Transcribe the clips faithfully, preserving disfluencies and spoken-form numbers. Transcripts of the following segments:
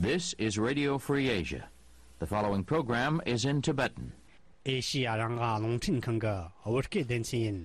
This is Radio Free Asia. The following program is in Tibetan. ཨེ་ཤི་ཡ་རང་དབང་རླུང་འཕྲིན་ཁང་གི་བོད་སྐད་སྡེ་ཚན་ཡིན།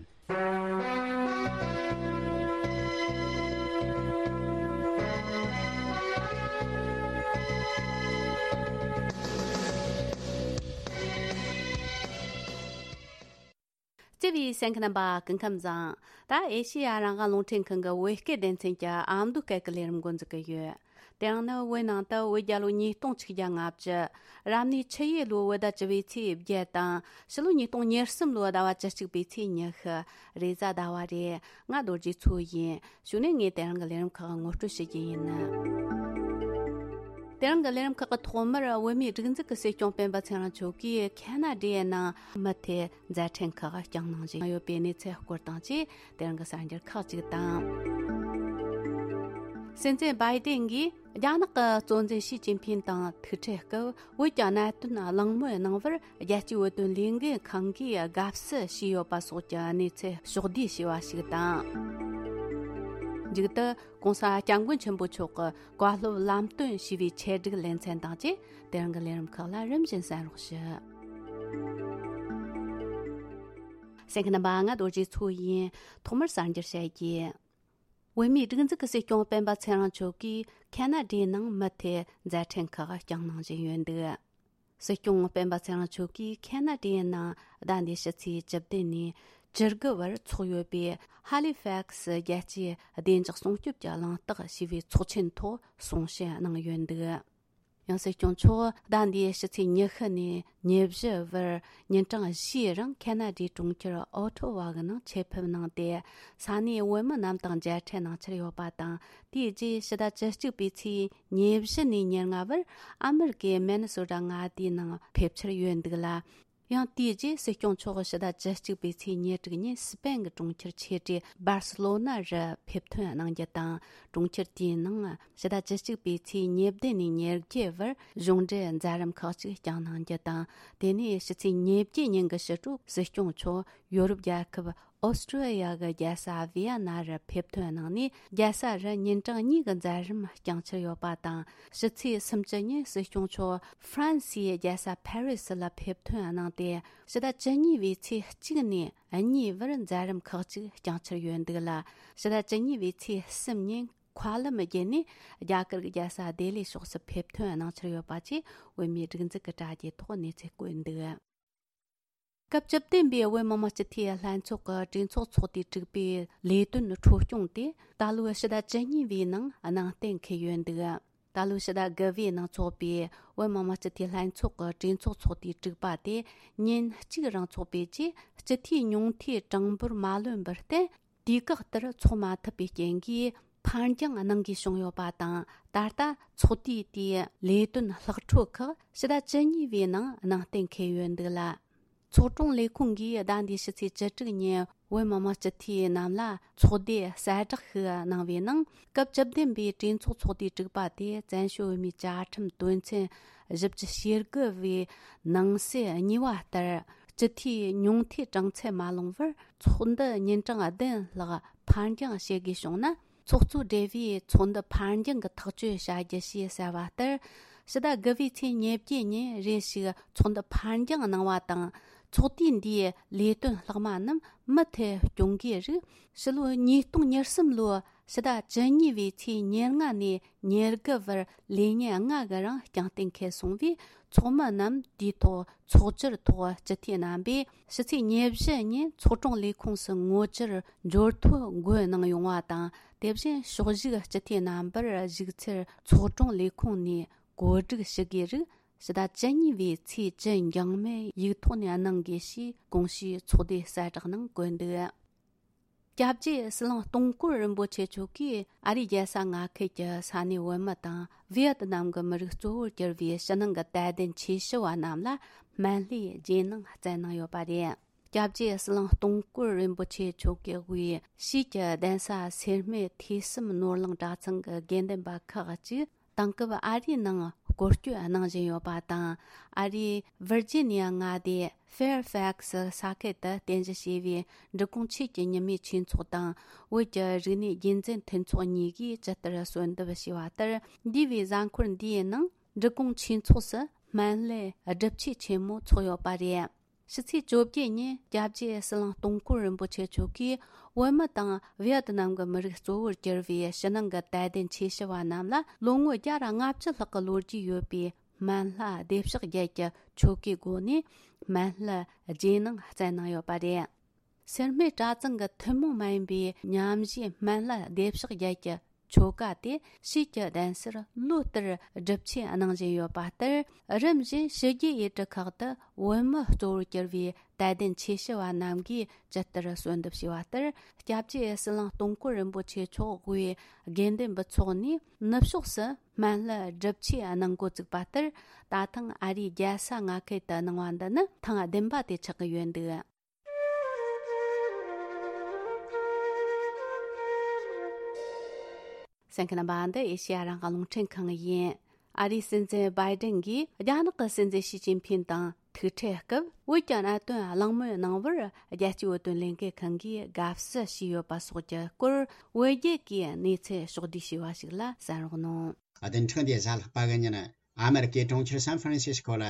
བརྩེ་བའི་གསན་མཁན་རྣམ་པ་སྐུ་ཁམས་བཟང་། ད་ཨེ་ཤི་ཡ་རང་དབང་རླུང་འཕྲིན་ཁང་གི་བོད་སྐད་སྡེ་ཚན་གྱི་ཨ་མདོ་སྐད་ཀྱི་ལས་རིམ་འགོ་འཛུགས་ཀྱི་ཡོད། དེ་རིང་ནི་བོད་ནང་དུ་བོད་རྒྱལ་ལོ་ཉིས་སྟོང་ཆིག་བརྒྱ་ལྔ་བཅུ། རབ་གནས་ཆུ་ཡོས་ལོའི་བོད་ཟླ་བཅུ་པའི་ཚེས་བརྒྱད་དང་། ཕྱི་ལོ་ཉིས་སྟོང་ཉེར་གསུམ་ལོའི་ཟླ་བ་བཅུ་གཅིག་པའི་ཚེས་ཉི་ཤུ། རེས་གཟའ་ཟླ་བ་རེད། ང་རྡོ་རྗེ་མཚོ་ཡིན། གཞུག་ནས་ངས་དེ་རིང་གི་ལས་རིམ་ཁག་ངོ་སྤྲོད་ཞུ་རྒྱུ་ཡིན། དེ་རིང་གི་ལས་རིམ་ཁག་གི་ཐོག་མར་བོད་མིའི་སྒྲིག་འཛུགས་ཀྱི་སྲིད་སྐྱོང་སྤེན་པ་ཚེ་རིང་མཆོག་གིས་ཁ་ན་ཌའི་ནང་མུ་མཐུད་མཛད་འཕྲིན་ཁག་བསྐྱངས་གནང་བཞིན་ཡོད་པའི་གནས་ཚུལ་སྐོར་དང་བཅས། དེ་རིང་གི་གསར་འགྱུར་ཁག་ཅིག་དང་། སྲིད་འཛིན་བྷའི་ཏིན་གྱིས་རྒྱ་ནག་གི་གཙོ་འཛིན་ཞི་ཅིན་ཕིན་དང་ཐུག་འཕྲད་སྐབས། བོད་ཀྱི་གནད་དོན་གླེང་མོལ་གནང་བར་རྒྱལ་སྤྱིའི་བོད་དོན་ལས་འགུལ་ཁང་གིས་དགའ་བསུ་ཞུས་ཡོད་པ་སོགས་ཀྱི་གནས་ཚུལ་ཕྱོགས་བསྡུས་བྱས་པ་ཞིག་དང་། མཇུག་ཏུ་༸གོང་ས་༸སྐྱབས་མགོན་ཆེན་པོ་མཆོག་གི་བཀའ་སློབ་ལམ་སྟོན་ཞུས་པའི་ཆེད་སྒྲིག་ལེ་ཚན་དང་བཅས། དེ་རིང་གི་ལས་རིམ་ཁག་ལ་རིམ་བཞིན་གསན་རོགས་ཞུ། གསན་མཁན་རྣམ་པ། ང་རྡོ་རྗེ་མཚོ་ཡིན། ཐོག་མར་གསར་འགྱུར་བཤད་རྒྱུ། བོད་མིའི་སྒྲིག་འཛུགས་ཀྱི་སྲིད་སྐྱོང་སྤེན་པ་ཚེ་རིང་མཆོག་གིས་ཁ་ན་ཌའི་ནང་མུ་མཐུད་མཛད་འཕྲིན་ཁག་བསྐྱངས་གནང་བཞིན་ཡོད་འདུག། སྲིད་སྐྱོང་སྤེན་པ་ཚེ་རིང་མཆོག་གིས་ཁ་ན་ཌའི་ནང་ཟླ་འདིའི་ཕྱི་ཚེས་བཅུ་བདུན་ནས་བཅུ་དགུ་བར་འཚོགས་ཡོད་པའི་ཧ་ལི་ཕེག་སི་རྒྱལ་སྤྱིའི་བདེ་འཇགས་སྲུང་སྐྱོབ་ཀྱི་གླེང་སྟེགས་ཞེས་པའི་ཚོགས་ཆེན་ཐོག་གསུང་བཤད་གནང་ཡོད་འདུག། ཡང་སྲིད་སྐྱོང་མཆོག་ཟླ་འདིའི་ཕྱི་ཚེས་ཉི་ཤུ་ནས་ཉེར་བཞི་བར་ཉིན་གྲངས་བཞིའི་རིང་ཁ་ན་ཌའི་གྲོང་ཁྱེར་ཨོ་ཊོ་ཝ་གི་ནང་ཆེད་ཕེབས་གནང་སྟེ། ས་གནས་བོད་མི་རྣམས་དང་མཇལ་འཕྲད་གནང་འཆར་ཡོད་པ་དང་། དེའི་རྗེས་ཕྱི་ཟླ་བཅུ་གཅིག་པའི་ཚེས་ཉེར་བཞི་ནས་ཉེར་ལྔ་བར་ཨ་མི་རི་ཀའི་མེ་ནི་སོ་ཊ་མངའ་སྡེའི་ནང་ཕེབས་འཆར་ཡོད་འདུག་ལ། ཡང་དེའི་རྗེས་སྲིད་སྐྱོང་མཆོག་ཕྱི་ཟླ་བཅུ་གཅིག་པའི་ཚེས་ཉེར་དྲུག་ཉིན་སི་པེན་གྱི་གྲོང་ཁྱེར་ཆེ་གྲས་སྦར་སི་ལོ་ན་རུ་ཕེབས་ཐོན་གནང་རྒྱུ་དང་། གྲོང་ཁྱེར་དེའི་ནང་ཕྱི་ཟླ་བཅུ་གཅིག་པའི་ཚེས་ཉེར་བདུན་ནས་ཉེར་བརྒྱད་བར་གཞུང་འབྲེལ་མཛད་རིམ་ཁག་ཅིག་བསྐྱངས་གནང་རྒྱུ་དང་། དེ་ནས་ཕྱི་ཚེས་ཉེར་བརྒྱད་ཉིན་གྱི་ཕྱི་དྲོ་སྲིད་སྐྱོང་མཆོག་ཡོ་རོབ་རྒྱལ་ཁབ་ཨོ་སི་ཀྲོ་ལི་ཡ་གི་རྒྱལ་ས་ཝི་ཡ་ན་རུ་ཕེབས་ཐོན་གནང་ནས། རྒྱལ་ས་རུ་ཉིན་གྲངས་གཉིས་ཀྱི་མཛད་རིམ་བསྐྱངས་འཆར་ཡོད་པ་དང་། ཕྱི་ཚེས་སུམ་ཅུ་ཉིན་སྲིད་སྐྱོང་མཆོག་ཧྥ་རན་སིའི་རྒྱལ་ས་ཕ་རི་སི་ལ་ཕེབས་ཐོན་གནང་སྟེ། ཕྱི་ཟླ་བཅུ་གཉིས་པའི་ཚེས་གཅིག་ནས་གཉིས་བར་མཛད་རིམ་ཁག་ཅིག་བསྐྱངས་འཆར་ཡོད་འདུག་ལ། ཕྱི་ཟླ་བཅུ་གཉིས་པའི་ཚེས་གསུམ་ཉིན་མཁའ་ལམ་བརྒྱུད་ནས་རྒྱ་གར་གྱི་རྒྱལ་ས་ལྡི་ལི་ཕྱོགས་སུ་ཕེབས་ཐོན་གནང་འཆར་ཡོད་པ་བཅས་བོད་མིའི་སྒྲིག་འཛུགས་ཀྱི་དྲ་རྒྱའི་ཐོག་གནས་ཚུལ་བཀོད་འདུག། སྐབས་བཅུ་བདུན་པའི་བོད་མི་མང་སྤྱི་འཐུས་ལྷན་ཚོགས་ཀྱི་གྲོས་ཚོགས་ཚོགས་དུས་དྲུག་པའི་ལས་དོན་འཕྲོ་སྐྱོང་དེ་ད་ལོའི་ཕྱི་ཟླ་བཅུ་གཉིས་པའི་ནང་ནང་གཏན་འཁེལ་ཡོད་འདུག། ད་ལོའི་ཕྱི་ཟླ་དགུ་པའི་ནང་འཚོགས་པའི་བོད་མི་མང་སྤྱི་འཐུས་ལྷན་ཚོགས་ཀྱི་གྲོས་ཚོགས་ཚོགས་དུས་དྲུག་པ་དེ་ཉིན་གཅིག་རིང་འཚོགས་པའི་རྗེས། སྤྱི་འཐུས་ཉུང་མཐའི་གྲངས་འབོར་མ་ལོན་པར་བརྟེན། དུས་བཀག་ལྟར་འཚོགས་མ་ཐུབ་པའི་རྐྱེན་གྱིས་འཕར་འགྱངས་གནང་དགོས་བྱུང་ཡོད་པ་དང་། ད་ལྟ་ཚོགས་དུས་དེའི་ལས་དོན་ལྷག་འཕྲོ་ཁག་ཕྱི་ཟླ་བཅུ་གཉིས་པའི་ནང་ནང་གཏན་འཁེལ་ཡོད་འདུག་ལ། ཚོགས་དྲུང་ལས་ཁུངས་ཀྱིས་ཟླ་འདིའི་ཕྱི་ཚེས་བཅུ་དྲུག་ཉིན་བོད་མི་མང་སྤྱི་འཐུས་རྣམས་ལ་ཚོགས་འདུའི་གསལ་བསྒྲགས་ཤིག་གནང་བའི་ནང་། སྐབས་བཅུ་བདུན་པའི་གྲོས་ཚོགས་ཚོགས་དུས་དྲུག་པ་དེ་བཙན་བྱོལ་བོད་མིའི་བཅའ་ཁྲིམས་དོན་ཚན་བཞི་བཅུ་ཞེ་དགུ་པའི་ནང་གསེས་གཉིས་པ་ལྟར། སྤྱི་འཐུས་ཉུང་མཐའི་གྲངས་ཚད་མ་ལོངས་པར་ཚོགས་འདུ་ཉིན་གྲངས་བདུན་ལྷག་འཕར་འགྱངས་བྱེད་དགོས་བྱུང་ན། ཚོགས་གཙོ་སྦྲེལ་བས་ཚོགས་འདུ་འཕར་འགྱངས་ཀྱི་ཐག་གཅོད་བྱ་རྒྱུ་ཞེས་གསལ་བ་ལྟར། ཕྱི་ཟླ་དགུ་པའི་ཚེས་ཉེར་བརྒྱད་ཉིན་རེ་ཞིག་ཚོགས་འདུ་འཕར་འགྱངས་གནང་བ་དང་། ཚོགས་དུས་འདིའི་ལས་དོན་ལྷག་མ་རྣམས་མུ་མཐུད་སྐྱོང་གི་རིགས། ཕྱི་ལོ་ཉིས་སྟོང་ཉེར་གསུམ་ལོའི་ཕྱི་ཟླ་བཅུ་གཉིས་པའི་ཚེས་ཉེར་ལྔ་ནས་ཉེར་དགུ་བར་ལས་ཉིན་ལྔ་གི་རིང་རྐྱང་གཏན་འཁེལ་སོང་བས། ཚོགས་མི་རྣམས་དུས་ཐོག་ཚོགས་བཅར་ཐོག་སྤྱི་འཐུས་རྣམ་པས་ཕྱི་ཚེས་ཉེར་བཞི་ཉིན་ཚོགས་དྲུང་ལས་ཁུངས་སུ་ངོ་བཅར་འབྱོར་ཐོ་འགོད་གནང་ཡོང་བ་དང་། དེ་བཞིན་ཕྱོགས་བཞུགས་སྤྱི་འཐུས་རྣམ་པར་བཞུགས་ཚུལ་ཚོགས་དྲུང་ལས་ཁུངས་ནས་གོ་སྒྲིག་ཞུ་དགོས་རིགས། ཕྱི་ཟླ་བཅུ་གཉིས་པའི་ཚེས་བཅུ་འགྱངས་མེད་ཡིག་ཐོག་ནས་གནང་དགོས་ཞེས་གོང་ཞུས་ཚོགས་སྡེའི་གསལ་བསྒྲགས་ནང་བཀོད་འདུག། སྐྱབས་རྗེ་ཟི་ལིང་སྟོང་སྐོར་རིན་པོ་ཆེ་མཆོག་གིས་ཨ་རིའི་རྒྱལ་ས་མངའ་ཁུལ་གྱི་ས་གནས་བོད་མི་དང་ཝི་ཡེ་ཏི་ནམ་གྱི་མི་རིགས་གཙོ་བོར་གྱུར་པའི་ཕྱི་ནང་གི་དད་ལྡན་ཆོས་ཞུ་བ་རྣམས་ལ་སྨན་བླའི་རྗེས་གནང་བསྩལ་གནང་ཡོད་པ་རེད། སྐྱབས་རྗེ་ཟི་ལིང་སྟོང་སྐོར་རིན་པོ་ཆེ་མཆོག་གི་དབུས་ཕྱིས་ཀྱི་གདན་ས་སེར་སྨད་ཐོས་བསམ་ནོར་གླིང་གྲྭ་ཚང་གི་དགེ་འདུན་པ་ཁག་ཅིག་ དེང་སྐབས་ཨ་རིའི་ནང་སྐོར་སྐྱོད་གནང་བཞིན་ཡོད་པ་དང་། ཨ་རིའི་ཝིར་ཇི་ནི་ཡ་མངའ་སྡེ་ཧྥེར་ཧྥེག་སི་ས་ཁུལ་དུ་རྟེན་གཞི་བྱས་པའི་འབྲི་གུང་ཆོས་ཀྱི་ཉི་མའི་ཆོས་ཚོགས་དང་བོད་ཀྱི་རིག་གནས་རྒྱུན་འཛིན་མཐུན་ཚོགས་གཉིས་ཀྱིས་ཇི་ལྟར་གསོལ་འདེབས་བྱས་པ་ལྟར། འདས་པའི་གཟའ་འཁོར་འདིའི་ནང་འབྲི་གུང་ཆོས་ཚོགས་སུ་སྨན་བླའི་སྒྲུབ་ཆོས་ཆེན་མོ་འཚོགས་ཡོད་པ་རེད། ཕྱི་ཚེས་བཅོ་བརྒྱད་ཉིན་སྐྱབས་རྗེ་ཟི་ལིང་སྟོང་སྐོར་རིན་པོ་ཆེ་མཆོག་གིས་བོད་མི་དང་ཝི་ཡེ་ཏི་ནམ་གྱི་མི་རིགས་གཙོ་བོར་གྱུར་པའི་ཕྱི་ནང་གི་དད་ལྡན་ཆོས་ཞུ་བ་རྣམས་ལ་ལོ་ངོ་བརྒྱ་དང་ལྔ་བཅུ་ལྷག་གི་ལོ་རྒྱུས་ཡོད་པའི་སྨན་བླ་བདེ་གཤེགས་རྒྱལ་གྱི་ཆོ་གའི་སྒོ་ནས་སྨན་བླའི་རྗེས་གནང་སྩལ་གནང་ཡོད་པ་རེད། སེར་སྨད་གྲྭ་ཚང་གི་ཐུན་མོང་མ་ཡིན་པའི་མཉམ་ཞུགས་སྨན་བླ་བདེ་གཤེགས་རྒྱལ་གྱི་ཆོ་ག་དེ་ཕྱིས་ཀྱི་གདན་སར་ལོ་ལྟར་སྒྲུབ་ཆེན་གནང་བཞིན་ཡོད་པ་ལྟར། རིམ་བཞིན་ཕྱི་རྒྱལ་ཡུལ་གྲུ་ཁག་ཏུ་བོད་མི་གཙོ་བོར་གྱུར་བའི་དད་ལྡན་ཆོས་ཞུ་བ་རྣམས་ཀྱིས་ཇི་ལྟར་གསོལ་འདེབས་བྱས་པ་ལྟར། སྐྱབས་རྗེ་ཟི་ལིང་སྟོང་སྐོར་རིན་པོ་ཆེ་མཆོག་དབུས་དགེ་འདུན་པའི་ཚོགས་ནས་ནུབ་ཕྱོགས་སུ་སྨན་བླའི་སྒྲུབ་ཆེན་གནང་འགོ་བཙུགས་པ་ལྟར། ད་ཐེངས་ཨ་རིའི་རྒྱལ་ས་མངའ་ཁུལ་དུ་གནང་བ་འདི་ནི་ཐེངས་བདུན་པ་དེ་ཆགས་ཀྱི་ཡོད་འདུག། གསན་མཁན་རྣམ་པ། འདི་ཨེ་ཤེ་ཡ་རང་དབང་རླུང་འཕྲིན་ཁང་ཡིན། ཨ་རིའི་སྲིད་འཛིན་བྷའི་ཏིན་གྱིས་རྒྱ་ནག་གི་སྲིད་འཛིན་ཞི་ཅིན་ཕིན་དང་ཐུག་འཕྲད་སྐབས། བོད་ཀྱི་གནད་དོན་གླེང་མོལ་གནང་བར་རྒྱལ་སྤྱིའི་བོད་དོན་ལས་འགུལ་ཁང་གིས་དགའ་བསུ་ཞུས་ཡོད་པ་སོགས་ཀྱི་སྐོར། བོད་རྒྱལ་གྱིས་གནས་ཚུལ་ཕྱོགས་བསྡུས་ཞུས་པ་ཞིག་ལ་གསན་རོགས་གནང་། བདུན་ཕྲག་འདིའི་གཟའ་ལྷག་པ་གི་ཉིན། ཨ་མེ་རི་ཀའི་གྲོང་ཁྱེར་སན་ཧྥ་རན་སི་སྐོ་ལ།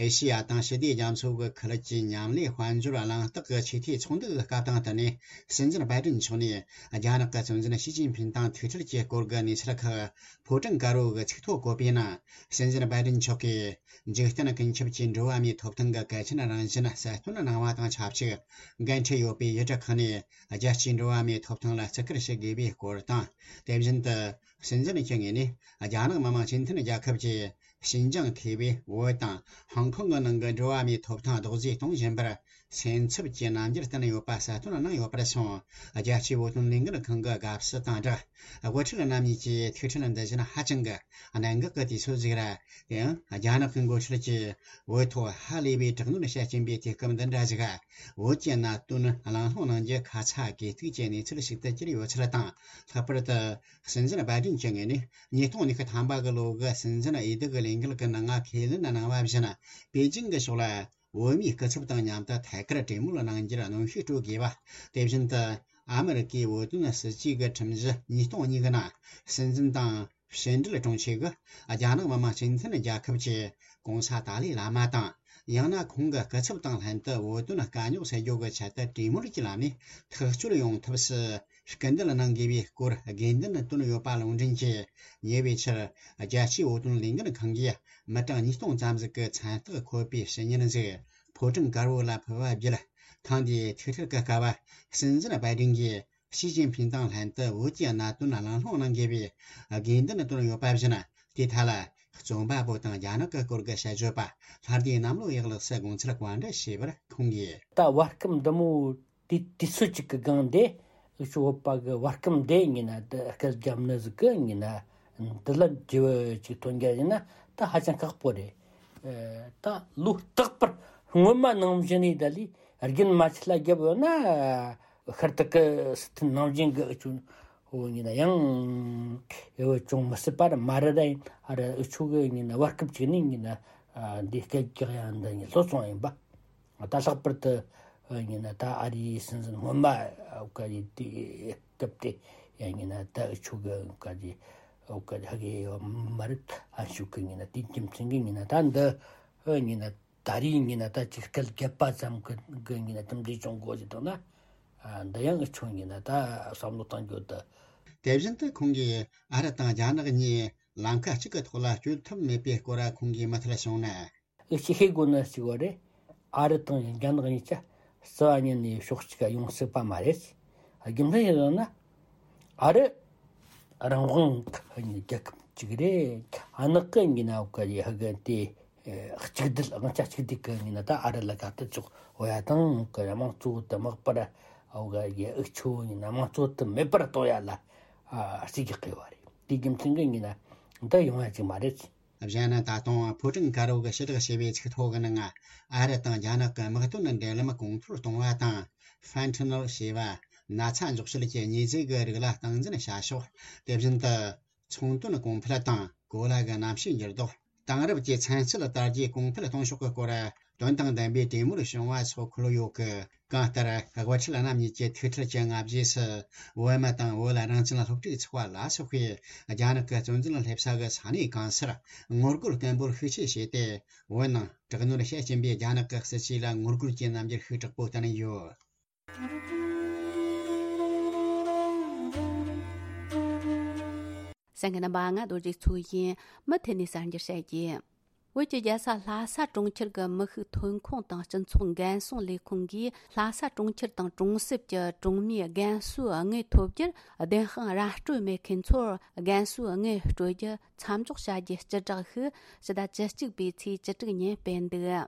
ཨེ་ཤེ་ཡ་དང་ཞི་བདེ་རྒྱ་མཚོ་གི་ཁུལ་གྱི་མཉམ་ལས་དཔལ་འབྱོར་གླེང་སྟེགས་ཀྱི་ཆེས་མཐོའི་ཚོགས་འདུ་གི་སྐབས་དང་བསྟུན་ནས། སྲིད་འཛིན་བྷའི་ཏིན་མཆོག་ནས་རྒྱ་ནག་གི་གཙོ་འཛིན་ཞི་ཅིན་ཕིན་དང་ཐུག་འཕྲད་ཀྱི་སྐོར་གྱི་གནས་ཚུལ་ཁག་ཕོ་བྲང་དཀར་པོ་གི་ཚིག་ཐོ་བཀོད་པའི་ནང་། སྲིད་འཛིན་བྷའི་ཏིན་མཆོག་གིས་འཇིག་རྟེན་ཀུན་ཁྱབ་ཀྱི་འགྲོ་བ་མིའི་ཐོབ་ཐང་གི་གལ་ཆེན་རང་བཞིན་གསལ་སྟོན་གནང་བ་དང་ཆབས་ཅིག། འགན་འཁྲི་ཡོད་པའི་ཡུལ་གྲུ་ཁག་ནས་རྒྱལ་སྤྱིའི་འགྲོ་བ་མིའི་ཐོབ་ཐང་ལ་བརྩི་བཀུར་ཞུ་དགོས་པའི་སྐོར་དང་། དེ་བཞིན་དུ། སྲིད་འཛིན་གྱི་ངོས་ནས་རྒྱ་ནག་མི་དམངས་སྤྱི་མཐུན་རྒྱལ་ཁབ་ཀྱིས་ཞིན་ཅང་ཐེ་བོད་དང་ཧོང་ཀོང་གི་ནང་གི་འགྲོ་བ་མིའི་ཐོབ་ཐང་རྡོག་རྫིས་གཏོང་བཞིན་པར་སེམས་འཚབ་ཀྱི་རྣམ་འགྱུར་བསྟན་ཡོད་པ་གསལ་སྟོན་གནང་ཡོད་པར་སོང་། རྒྱལ་སྤྱིའི་བོད་དོན་ལས་འགུལ་ཁང་གི་དགའ་བསུ་དང་སྦྲགས། དབུ་ཁྲིད་རྣམ་གཉིས་ཀྱི་ཐུག་འཕྲད་འདི་བཞིན་ཧ་ཅང་གི་གནད་འགག་གི་དུས་ཚོད་ཅིག་རེད། དེ་ཡང་རྒྱ་ནག་གི་འགོ་ཁྲིད་ཀྱིས་བོད་ཐོག་ཧ་ལས་པའི་དྲག་གནོན་བྱེད་ཀྱིན་པའི་དུས་སྐབས་འདི་འདྲ་ཞིག་བོད་ཀྱི་གནད་དོན་གླེང་སློང་གནང་རྒྱུ་ཁ་ཚ་དགོས་གཏུགས་ཀྱི་གནས་ཚུལ་ཞིག་ཏུ་གྱུར་ཡོད་ཚུལ་དང་། ལྷག་པར་དུ། སྲིད་འཛིན་བྷའི་ཏིན་གྱི་ངོས་ནས་ཉིས་སྟོང་ཉི་ཤུ་ཐམ་པ་གི་ལོ་གི་སྲིད་འཛིན་འོས་བསྡུ་གི་ལས་འགུལ་གྱི་ནང་ཁས་ལེན་གནང་བ་བཞིན། པེ་ཅིང་གི་ཕྱོགས་ལ་བོད་མིའི་སྐུ་ཚབ་དང་མཉམ་དུ་ཐད་ཀར་གྲོས་མོལ་གནང་རྒྱུར་གནོན་ཤུགས་སྤྲོད་དགོས་པ། དེ་བཞིན་དུ། ཨ་མི་རི་ཀའི་བོད་དོན་སྲིད་བྱུས་ཀྱི་ཁྲིམས་གཞི་ཉིས་སྟོང་གཉིས་ཀྱི་ནང་། སྲིད་འཛིན་དང་ཕྱི་འབྲེལ་དྲུང་ཆེ་གིས་རྒྱ་ནག་མི་དམངས་སྤྱི་མཐུན་རྒྱལ་ཁབ་ཀྱི་གོང་ས་ཏཱ་ལའི་བླ་མ་དང་། ཡང་ན་ཁོང་གི་སྐུ་ཚབ་དང་ལྷན་དུ་བོད་དོན་དཀའ་རྙོག་སེལ་རྒྱུ་གི་ཆེད་དུ་གྲོས་མོལ་གྱི་ལམ་ནས་ཐག་གཅོད་ཡོང་ཐབས་སུ་སྐུལ་འདེད་གནང་དགོས་པའི་སྐོར་དགོས་འདུན་བཏོན་ཡོད་པ་ལུང་འདྲེན་གྱིས། ཉེ་བའི་ཆར་རྒྱལ་སྤྱིའི་བོད་དོན་ལས་འགུལ་ཁང་གིས་མི་གྲངས་ཉིས་སྟོང་ཙམ་ཞིག་གི་མཚན་རྟགས་འཁོད་པའི་ཕྱི་ཉིན་ཞིག་ཕོ་བྲང་དཀར་པོ་ལ་ཕུལ་བ་བརྒྱུད། ཐེངས་འདིའི་ཐུག་འཕྲད་ཀྱི་སྐབས་སྲིད་འཛིན་བྷའི་ཏིན་གྱིས་ཞི་ཅིན་ཕིན་དང་ལྷན་དུ་བོད་ཀྱི་གནད་དོན་གླེང་སློང་གནང་དགོས་པའི་དགོས་འདུན་བཏོན་ཡོད་པ་བཞིན། དེའི་ཐད་ལ་རྩོམ་པ་པོ་དང་རྒྱ་ནག་གི་སྐོར་གྱི་དཔྱད་བརྗོད་པ་ལྷ་སྡེ་གནམ་ལོ་ཡག་ལགས་སུ་དགོངས་ཚུལ་བཀའ་འདྲི་ཞུས་པར་ཁོང་གིས། ད་བར་སྐབས་འདི་མོ་དུས་དུས་ཚོད་ཅིག་གི་སྒང་དེ་ཨུ་ཆོ་བོད་པ་གི་བར་སྐབས་འདི་ཡིན་ན། དེ་སྐད་རྒྱབ་ནི་ཟིག་གི་ཡིན་ན། འདི་ལ་འགྱུར་བ་ཅིག་ཐོན་རྒྱུ་ཡིན་ན་ད་ཧ་ཅང་ཁག་པོ་རེད། ཨ། ད་ལོ་རྟག་པར་སྔོན་མ་ནང་བཞིན་ནས་ད་ལས་རྒྱུན་མ་ཆད་ལ་རྒྱབ་ཡོད་ན། ཤར་ཐུག་གི་སྲིད་དོན་ནང་བཞིན་གི་ཨུ་ཆོ་བོ་ཡིན་ན་ཡང་ཨེ་བོ་ཅུང་མི་སྲིད་པ་ར་མ་རེད། ད་ཡིན་ཨ་ར་ཨུ་ཆོ་གི་ཡིན་ན་བར་སྐབས་ཅིག་ནས་ཡིན་ན་འདི་སྐད་རྒྱག་ཡ་འདི་ཡིན་ལྷོད་སོང་ཡིན་པ། ད་ལྷག་པར་དུ་ཡིན་ན་ད་ཨ་རིའི་སྲིད་འཛིན་སྔོན་མ་བཀའ་ཡི་དུས་སྐབས་དེ་ཡང་ཡིན་ན་ད་ཨུ་ཆོ་གི་བཀའ་ཡི་བཀའ་ཧ་གི་མ་རེད། ཨ་ཆོ་གི་ཡིན་ན་དེའི་རྒྱུ་མཚན་གི་ཡིན་ན་ད་འདི་ཡིན་ན། ད་རེས་ཡིན་ན་ད་ཅིག་སྐད་རྒྱབ་པ་ཙམ་གི་གི་ཡིན་ན་དེ་འདྲའི་བྱུང་དགོས་ཀྱི་འདུག་ན། ཨ། འདི་ཡང་ཨུ་ཆོ་ཡིན་ན་ད་བསམ་བློ་གཏོང་རྒྱུ་དེ། དེ་བཞིན་དུ་ཁོང་གིས་ཨ་རི་དང་རྒྱ་ནག་གཉིས་ལམ་ཁ་གཅིག་གི་ཐོག་ལ་སྐྱོད་ཐུབ་མེད་པའི་སྐོར་ཁོང་གིས་མུ་མཐུད་གསུངས་ན། ཨུ་ཆོས་ཤེས་དགོས་ནི་གཅིག་པ་རེད། ཨ་རི་དང་རྒྱ་ནག་གཉིས་ཀ་རྩ་བ་ཉིད་ནས་ཕྱོགས་གཅིག་ག་ཡོང་སྲིད་པ་མ་རེད། རྒྱུ་མཚན་ཡིན་ན། ཨ་རི་རང་དབང་གི་རྒྱལ་ཁབ་ཅིག་རེད། ཨ་ནག་གི་ཡིན་ན་བཀའ་ཡི་ཧ་གི་དེ། ཨེ། གཅིག་སྡུད། དབང་ཆ་གཅིག་སྡུད་ཀྱི་ཡིན་ན་ད་ཨ་རི་ལ་ག་ཏི་ཅོག་འོ་ཡ་དང་གི་དམངས་གཙོ་དུ་མག་པར་འོ་ག་ཡི་ཨུ་ཆོ་ཡིན་ན་དམངས་གཙོ་དུ་མེད་པར་གཏོང་ཡ་ལ། ཨ། རྩིས་རྒྱག་གི་བ་རེད། དེའི་རྒྱུ་མཚན་གྱི་ཡིན་ན་འདི་ཡོང་ཡ་ཅིག་མ་རེད། གཞན་ད་དུང་ཕོ་བྲང་དཀར་པོ་གི་ཕྱི་བསྒྲགས་བྱས་པའི་ཚིག་ཐོ་གི་ནང་ཨ་རི་དང་རྒྱ་ནག་གི་དམག་དོན་འབྲེལ་ལམ་གོང་མཐོར་གཏོང་བ་དང་། ཧྥན་ཐི་ནོལ་ཞེས་པ་ན་ཚ་འཇོག་བྱེད་ཀྱི་མྱི་རྫས་ཀྱི་རིགས་ལ་སྟངས་འཛིན་བྱ་ཕྱོགས། དེ་བཞིན་དུ། ཚོང་དོན་གོང་འཕེལ་དང་ གོ་ལ་གི་གནམ་གཤིས་འགྱུར་ལྡོག། དེང་རབས་ཀྱི་ཚན་རྩལ་དར་རྒྱས་གོང་འཕེལ་གཏོང་ཕྱོགས་ཀྱི་སྐོར་དོན་དང་ལྡན་པའི་གྲོས་མོལ་བྱུང་བ་སོགས་འཁོད་ཡོད་ཀི། གང་ལྟར་དབུ་ཁྲིད་རྣམ་གཉིས་ཀྱི་ཐུག་འཕྲད་ཀྱི་སྔ་རྗེས་སུ། བོད་མི་དང་བོད་རང་བཙན་སློབ་ཕྲུག་ཚོགས་པ་ལ་སོགས་པས་རྒྱ་ནག་གི་གཙོ་འཛིན་སླེབས་ས་གི་ས་གནས་གང་སར་ངོ་རྒོལ་སྐད་འབོད་ཤུགས་ཆེ་བྱས་ཏེ། བོད་ནང་དྲག་གནོན་བྱེད་བཞིན་པའི་རྒྱ་ནག་གི་སྲིད་བྱུས་ལ་ངོ་རྒོལ་གྱི་རྣམ་འགྱུར་ཤུགས་དྲག་པོ་བསྟན་ཡོད། གསན་མཁན་རྣམ་པ། ང་རྡོ་རྗེ་མཚོ་ཡིན། མུ་མཐུད་ནས་གསར་འགྱུར་བཤད་རྒྱུ། བོད་ཀྱི་རྒྱལ་ས་ལྷ་ས་གྲོང་ཁྱེར་གྱི་མི་ཤུགས་ཐོན་ཁུངས་དང་སྤྱི་ཚོགས་འགན་སྲུང་ལས་ཁུངས་ཀྱིས་ལྷ་ས་གྲོང་ཁྱེར་དང་གྲོང་གསེབ་ཀྱི་གྲོང་མིའི་རྒན་གསོའི་དངུལ་ཐོབ་རྒྱུར་བདེན་དཔང་ར་སྤྲོད་མེད་མཁན་ཚོར་རྒན་གསོའི་དངུལ་སྤྲོད་རྒྱུ་མཚམས་འཇོག་བྱ་རྒྱུའི་སྤྱི་བསྒྲགས་ཤིག་ཕྱི་ཟླ་བཅུ་གཅིག་པའི་ཚེས་བཅུ་དྲུག་ཉིན་སྤེལ་འདུག།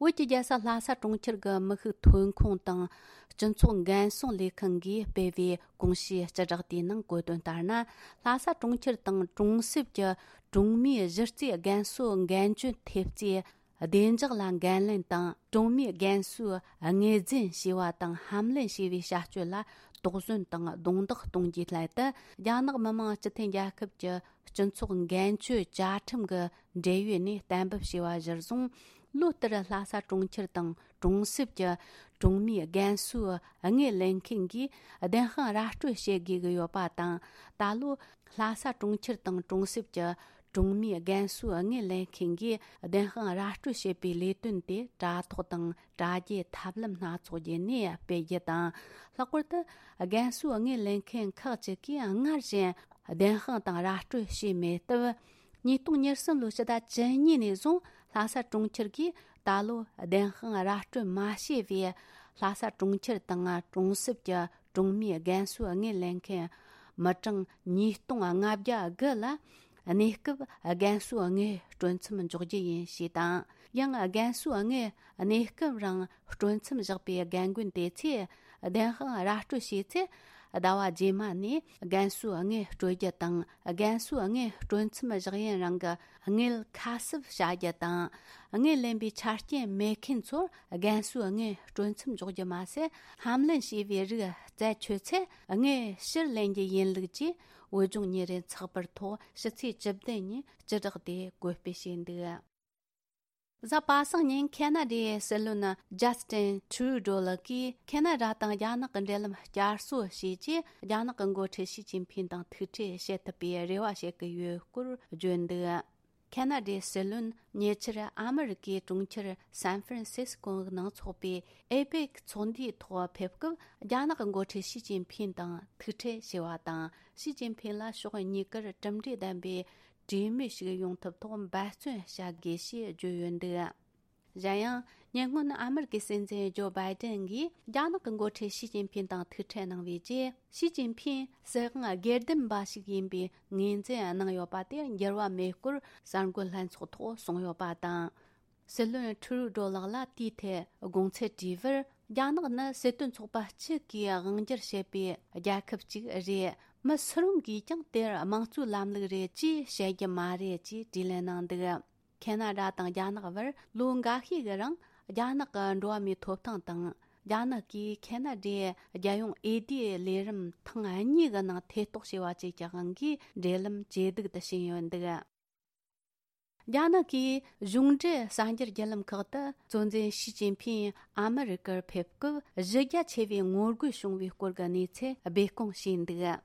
བོད་ཀྱི་རྒྱལ་ས་ལྷ་ས་གྲོང་ཁྱེར་གྱི་མི་ཤུགས་ཐོན་ཁུངས་དང་སྤྱི་ཚོགས་འགན་སྲུང་ལས་ཁང་གིས་སྤེལ་བའི་གོང་ཞུས་སྤྱི་བསྒྲགས་དེའི་ནང་བཀོད་དོན་ལྟར་ན། ལྷ་ས་གྲོང་ཁྱེར་དང་གྲོང་གསེབ་ཀྱི་གྲོང་མིའི་གཞི་རྩའི་རྒན་གསོའི་འགན་བཅོལ་ཐེབས་རྩའི་བདེ་འཇགས་ལ་འགན་ལེན་དང་། གྲོང་མིའི་རྒན་གསོའི་དངོས་རྫུན་ཞེས་པ་དང་ཧམ་ལེན་བྱས་པའི་བྱ་སྤྱོད་ལ་དོགས་ཟོན་དང་རྡུང་རྡེག་གཏོང་རྒྱུའི་སླད་དུ། རྒྱ་ནག་མི་དམངས་སྤྱི་མཐུན་རྒྱལ་ཁབ་ཀྱི་སྤྱི་ཚོགས་འགན་བཅོལ་བཅའ་ཁྲིམས་ཀྱི་འབྲེལ་ཡོད་ནས་གཏན་འབེབས་བྱས་པ་གཞིར་བཟུང་། ལོ་ལྟར་ལྷ་ས་གྲོང་ཁྱེར་དང་གྲོང་གསེབ་ཀྱི་གྲོང་མིའི་རྒན་གསོའི་དངུལ་ལེན་མཁན་གྱིས་བདེན་དཔང་ར་སྤྲོད་བྱེད་དགོས་ཀྱི་ཡོད་པ་དང་། ད་ལོ་ལྷ་ས་གྲོང་ཁྱེར་དང་གྲོང་གསེབ་ཀྱི་གྲོང་མིའི་རྒན་གསོའི་དངུལ་ལེན་མཁན་གྱིས་བདེན་དཔང་ར་སྤྲོད་བྱེད་པའི་ལས་དོན་དེ་དྲ་ཐོག་དང་དྲ་རྒྱའི་ཐབས་ལམ་སྣ་ཚོགས་བརྒྱུད་ནས་སྤེལ་རྒྱུ་དང་། ལྷག་པར་དུ་རྒན་གསོའི་དངུལ་ལེན་མཁན་ཁག་ཅིག་གིས་སྔར་བཞིན་བདེན་དཔང་དང་ར་སྤྲོད་བྱས་མེད་སྟབས། ཉིས་སྟོང་ཉེར་གསུམ་ལོའི་ཕྱི་ཟླ་བཅུ་གཉིས་ནས་བཟུང་ལྷ་ས་གྲོང་ཁྱེར་གྱིས་ད་ལོ་བདེན་དཔང་ར་སྤྲོད་མ་བྱས་པའི་ལྷ་ས་གྲོང་ཁྱེར་དང་གྲོང་གསེབ་ཀྱི་གྲོང་མིའི་རྒན་གསོའི་དངུལ་ལེན་མཁན་མི་གྲངས་ཉིས་སྟོང་ལྔ་བརྒྱ་དགུ་ལ་གནས་སྐབས་རྒན་གསོའི་དངུལ་སྤྲོད་མཚམས་འཇོག་རྒྱུ་ཡིན་ཞེས་དང་། ཡང་རྒན་གསོའི་དངུལ་གནས་སྐབས་རིང་སྤྲོད་མཚམས་བཞག་པའི་རྒན་རྒོན་དེ་ཚོས་བདེན་དཔང་ར་སྤྲོད་བྱས་ཚེ། ཟླ་བ་རྗེས་མ་ནས་རྒན་གསོའི་དངུལ་སྤྲོད་རྒྱུ་དང་། རྒན་གསོའི་དངུལ་སྤྲོད་མཚམས་བཞག་ཡུན་རིང་གི་དངུལ་ཁ་གསབ་བྱ་རྒྱུ་དང་། དངུལ་ལེན་པའི་ཆ་རྐྱེན་མེད་མཁན་ཚོར་རྒན་གསོའི་དངུལ་སྤྲོད་མཚམས་འཇོག་རྒྱུ་མ་ཟད། ཧམ་ལེན་བྱས་པའི་རིགས་རྩད་ཆོད་ཚེ་དངུལ་ཕྱིར་ལེན་རྒྱུ་ཡིན་ལུགས་ཀྱིས་བོད་ལྗོངས་ཉིན་རེའི་ཚགས་པར་ཐོག་ཕྱི་ཚེས་བཅུ་བདུན་ཉིན་སྤྱི་བསྒྲགས་དེ་བཀོད་སྤེལ་བྱས་འདུག། གཟའ་པ་སངས་ཉིན་ཁེ་ན་ཌའི་སྲིད་བློན་ཇ་སི་ཊིན་ཊུ་རུ་ཌོ་ལགས་ཀྱིས་ཁེ་ན་ཌ་དང་རྒྱ་ནག་གི་འབྲེལ་ལམ་བསྐྱར་གསོ་བྱས་རྗེས། རྒྱ་ནག་གི་འགོ་ཁྲིད་ཞི་ཅིན་ཕིང་དང་ཐུག་འཕྲད་བྱེད་ཐུབ་པའི་རེ་བ་བྱེད་ཀྱི་ཡོད་སྐོར་བརྗོད་འདུག། ཁེ་ན་ཌའི་སྲིད་བློན་ཉེ་ཆར་ཨ་མི་རི་ཀའི་གྲོང་ཁྱེར་སན་ཧྥ་རན་སིས་ཀོ་ནང་འཚོགས་པའི་ཨེ་པེག་ཚོགས་འདུའི་ཐོག་ཕེབས་སྐབས། རྒྱ་ནག་གི་འགོ་ཁྲིད་ཞི་ཅིན་ཕིང་དང་ཐུག་འཕྲད་བྱས་པ་དང་། ཞི་ཅིན་ཕིང་ལ་ཕྱོགས་གཉིས་ཀར་གྲུབ་འབྲས་ལྡན་པའི་གྲོས་མོལ་ཞིག་ཡོང་ཐབས་ཐོག་འབད་བརྩོན་བྱ་དགོས་ཞེས་བརྗོད་ཡོད་འདུག། གཞན་ཡང་། ཉེ་སྔོན་ཨ་མི་རི་ཀའི་སྲིད་འཛིན་ཇོ་བྷའི་ཏན་གྱིས་རྒྱ་ནག་གི་འགོ་ཁྲིད་ཞི་ཅིན་ཕིང་དང་ཐུག་འཕྲད་གནང་བའི་རྗེས། ཞི་ཅིན་ཕིང་སྲིད་དབང་སྒེར་སྡེམ་པ་ཞིག་ཡིན་པའི་ངོས་འཛིན་གནང་ཡོད་པ་དེ་འགྱུར་བ་མེད་སྐོར་གསར་འགོད་ལྷན་ཚོགས་ཐོག་གསུངས་ཡོད་པ་དང་། སྲིད་བློན་ཁྲུ་རུ་ཌོ་ལགས་ལ་དེའི་ཐད་དགོངས་ཚུལ་དྲིས་པར། རྒྱ་ནག་ནི་སྲིད་དོན་ཚོགས་པ་གཅིག་གིས་དབང་སྒྱུར་བྱེད་པའི་རྒྱལ་ཁབ་ཅིག་རེད། མི་སུ་རུང་གིས་ཀྱང་དེར་དམངས་གཙོའི་ལམ་ལུགས་རེད་ཅེས་བཤད་རྒྱུ་མ་རེད་ཅེས་དྲིས་ལན་གནང་འདུག། ཁེ་ན་ཌ་དང་རྒྱ་ནག་བར་ལོ་འགའ་ཤས་ཀྱི་རིང་རྒྱ་ནག་གི་འགྲོ་བ་མིའི་ཐོབ་ཐང་དང་། རྒྱ་ནག་གིས་ཁེ་ན་ཌའི་རྒྱལ་ཡོངས་འོས་བསྡུའི་ལས་རིམ་ཐེངས་གཉིས་ཀྱི་ནང་ཐེ་གཏོགས་བྱས་པ་བཅས་ཀྱི་དབང་གིས་འབྲེལ་ལམ་ཇེ་སྡུག་ཏུ་ཕྱིན་ཡོད་འདུག། རྒྱ་ནག་གིས་གཞུང་འབྲེལ་གསར་འགྱུར་བརྒྱུད་ལམ་ཁག་ཏུ་གཙོ་འཛིན་ཞི་ཅིན་ཕིང་ཨ་མི་རི་ཀར་ཕེབས་སྐབས་གཞི་རྒྱ་ཆེ་བའི་ངོ་རྒོལ་བྱུང་བའི་སྐོར་གྱི་གནས་ཚུལ་སྦས་སྐུང་བྱས་འདུག།